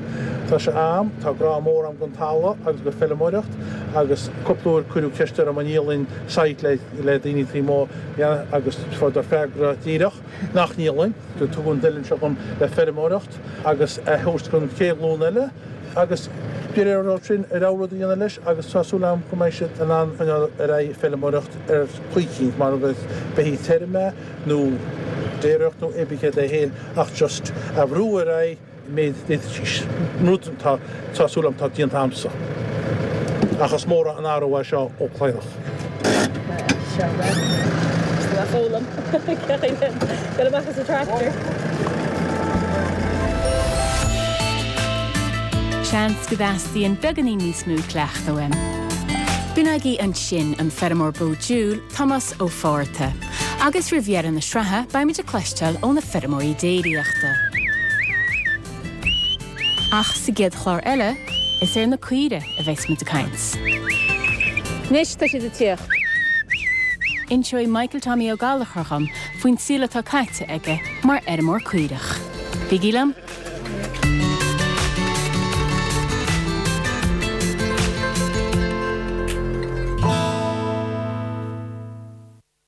tá sé a'm, tá grá mór a'm don talamh agus go feilméaracht. Agus cúpla uair cuireadh ceist orm an ndíolfainn site le daoine taobh amuigh agus fuaireadar freagra díreach nach ndíolfainn. Tugadh an toileán seo dhom le feirmeoireacht agus a thabhairt don chéad ghlúin eile agus de réir orthu sin a rogha rud a dhéanamh leis agus tá súil agam go mbeidh siad in ann coinneáil ar aghaidh ag feirmeoireacht ar chaoi eicínt mar a bheith tirim é nó déiríocht nó pé céard é féin ach just a bhrú ar aghaidh méid d'fhéadfaidís rud atá tá súil agam atá déanta agamsa. Ach is mór an athrú é seo ó Cladhnach. Seans go dteastaíonn beagáinín níos mó cleachtaidh uaim. B'in agaibh ansin an feirmeoir bó diúil, Tomás Ó Fátharta. Agus roimh dheireadh na sraithe, beimid ag cloisteáil ó na feirmeoirí déiríochta. Ach sa gcéad chlár eile, is ar na caoirigh a bheas muid ag caint. Anois tá siad ag tíocht. Inseoidh Michael Tommy Ó Gallchóir dhom faoin saol atá caite aige mar fheirmeoir caorach. Bígí liom!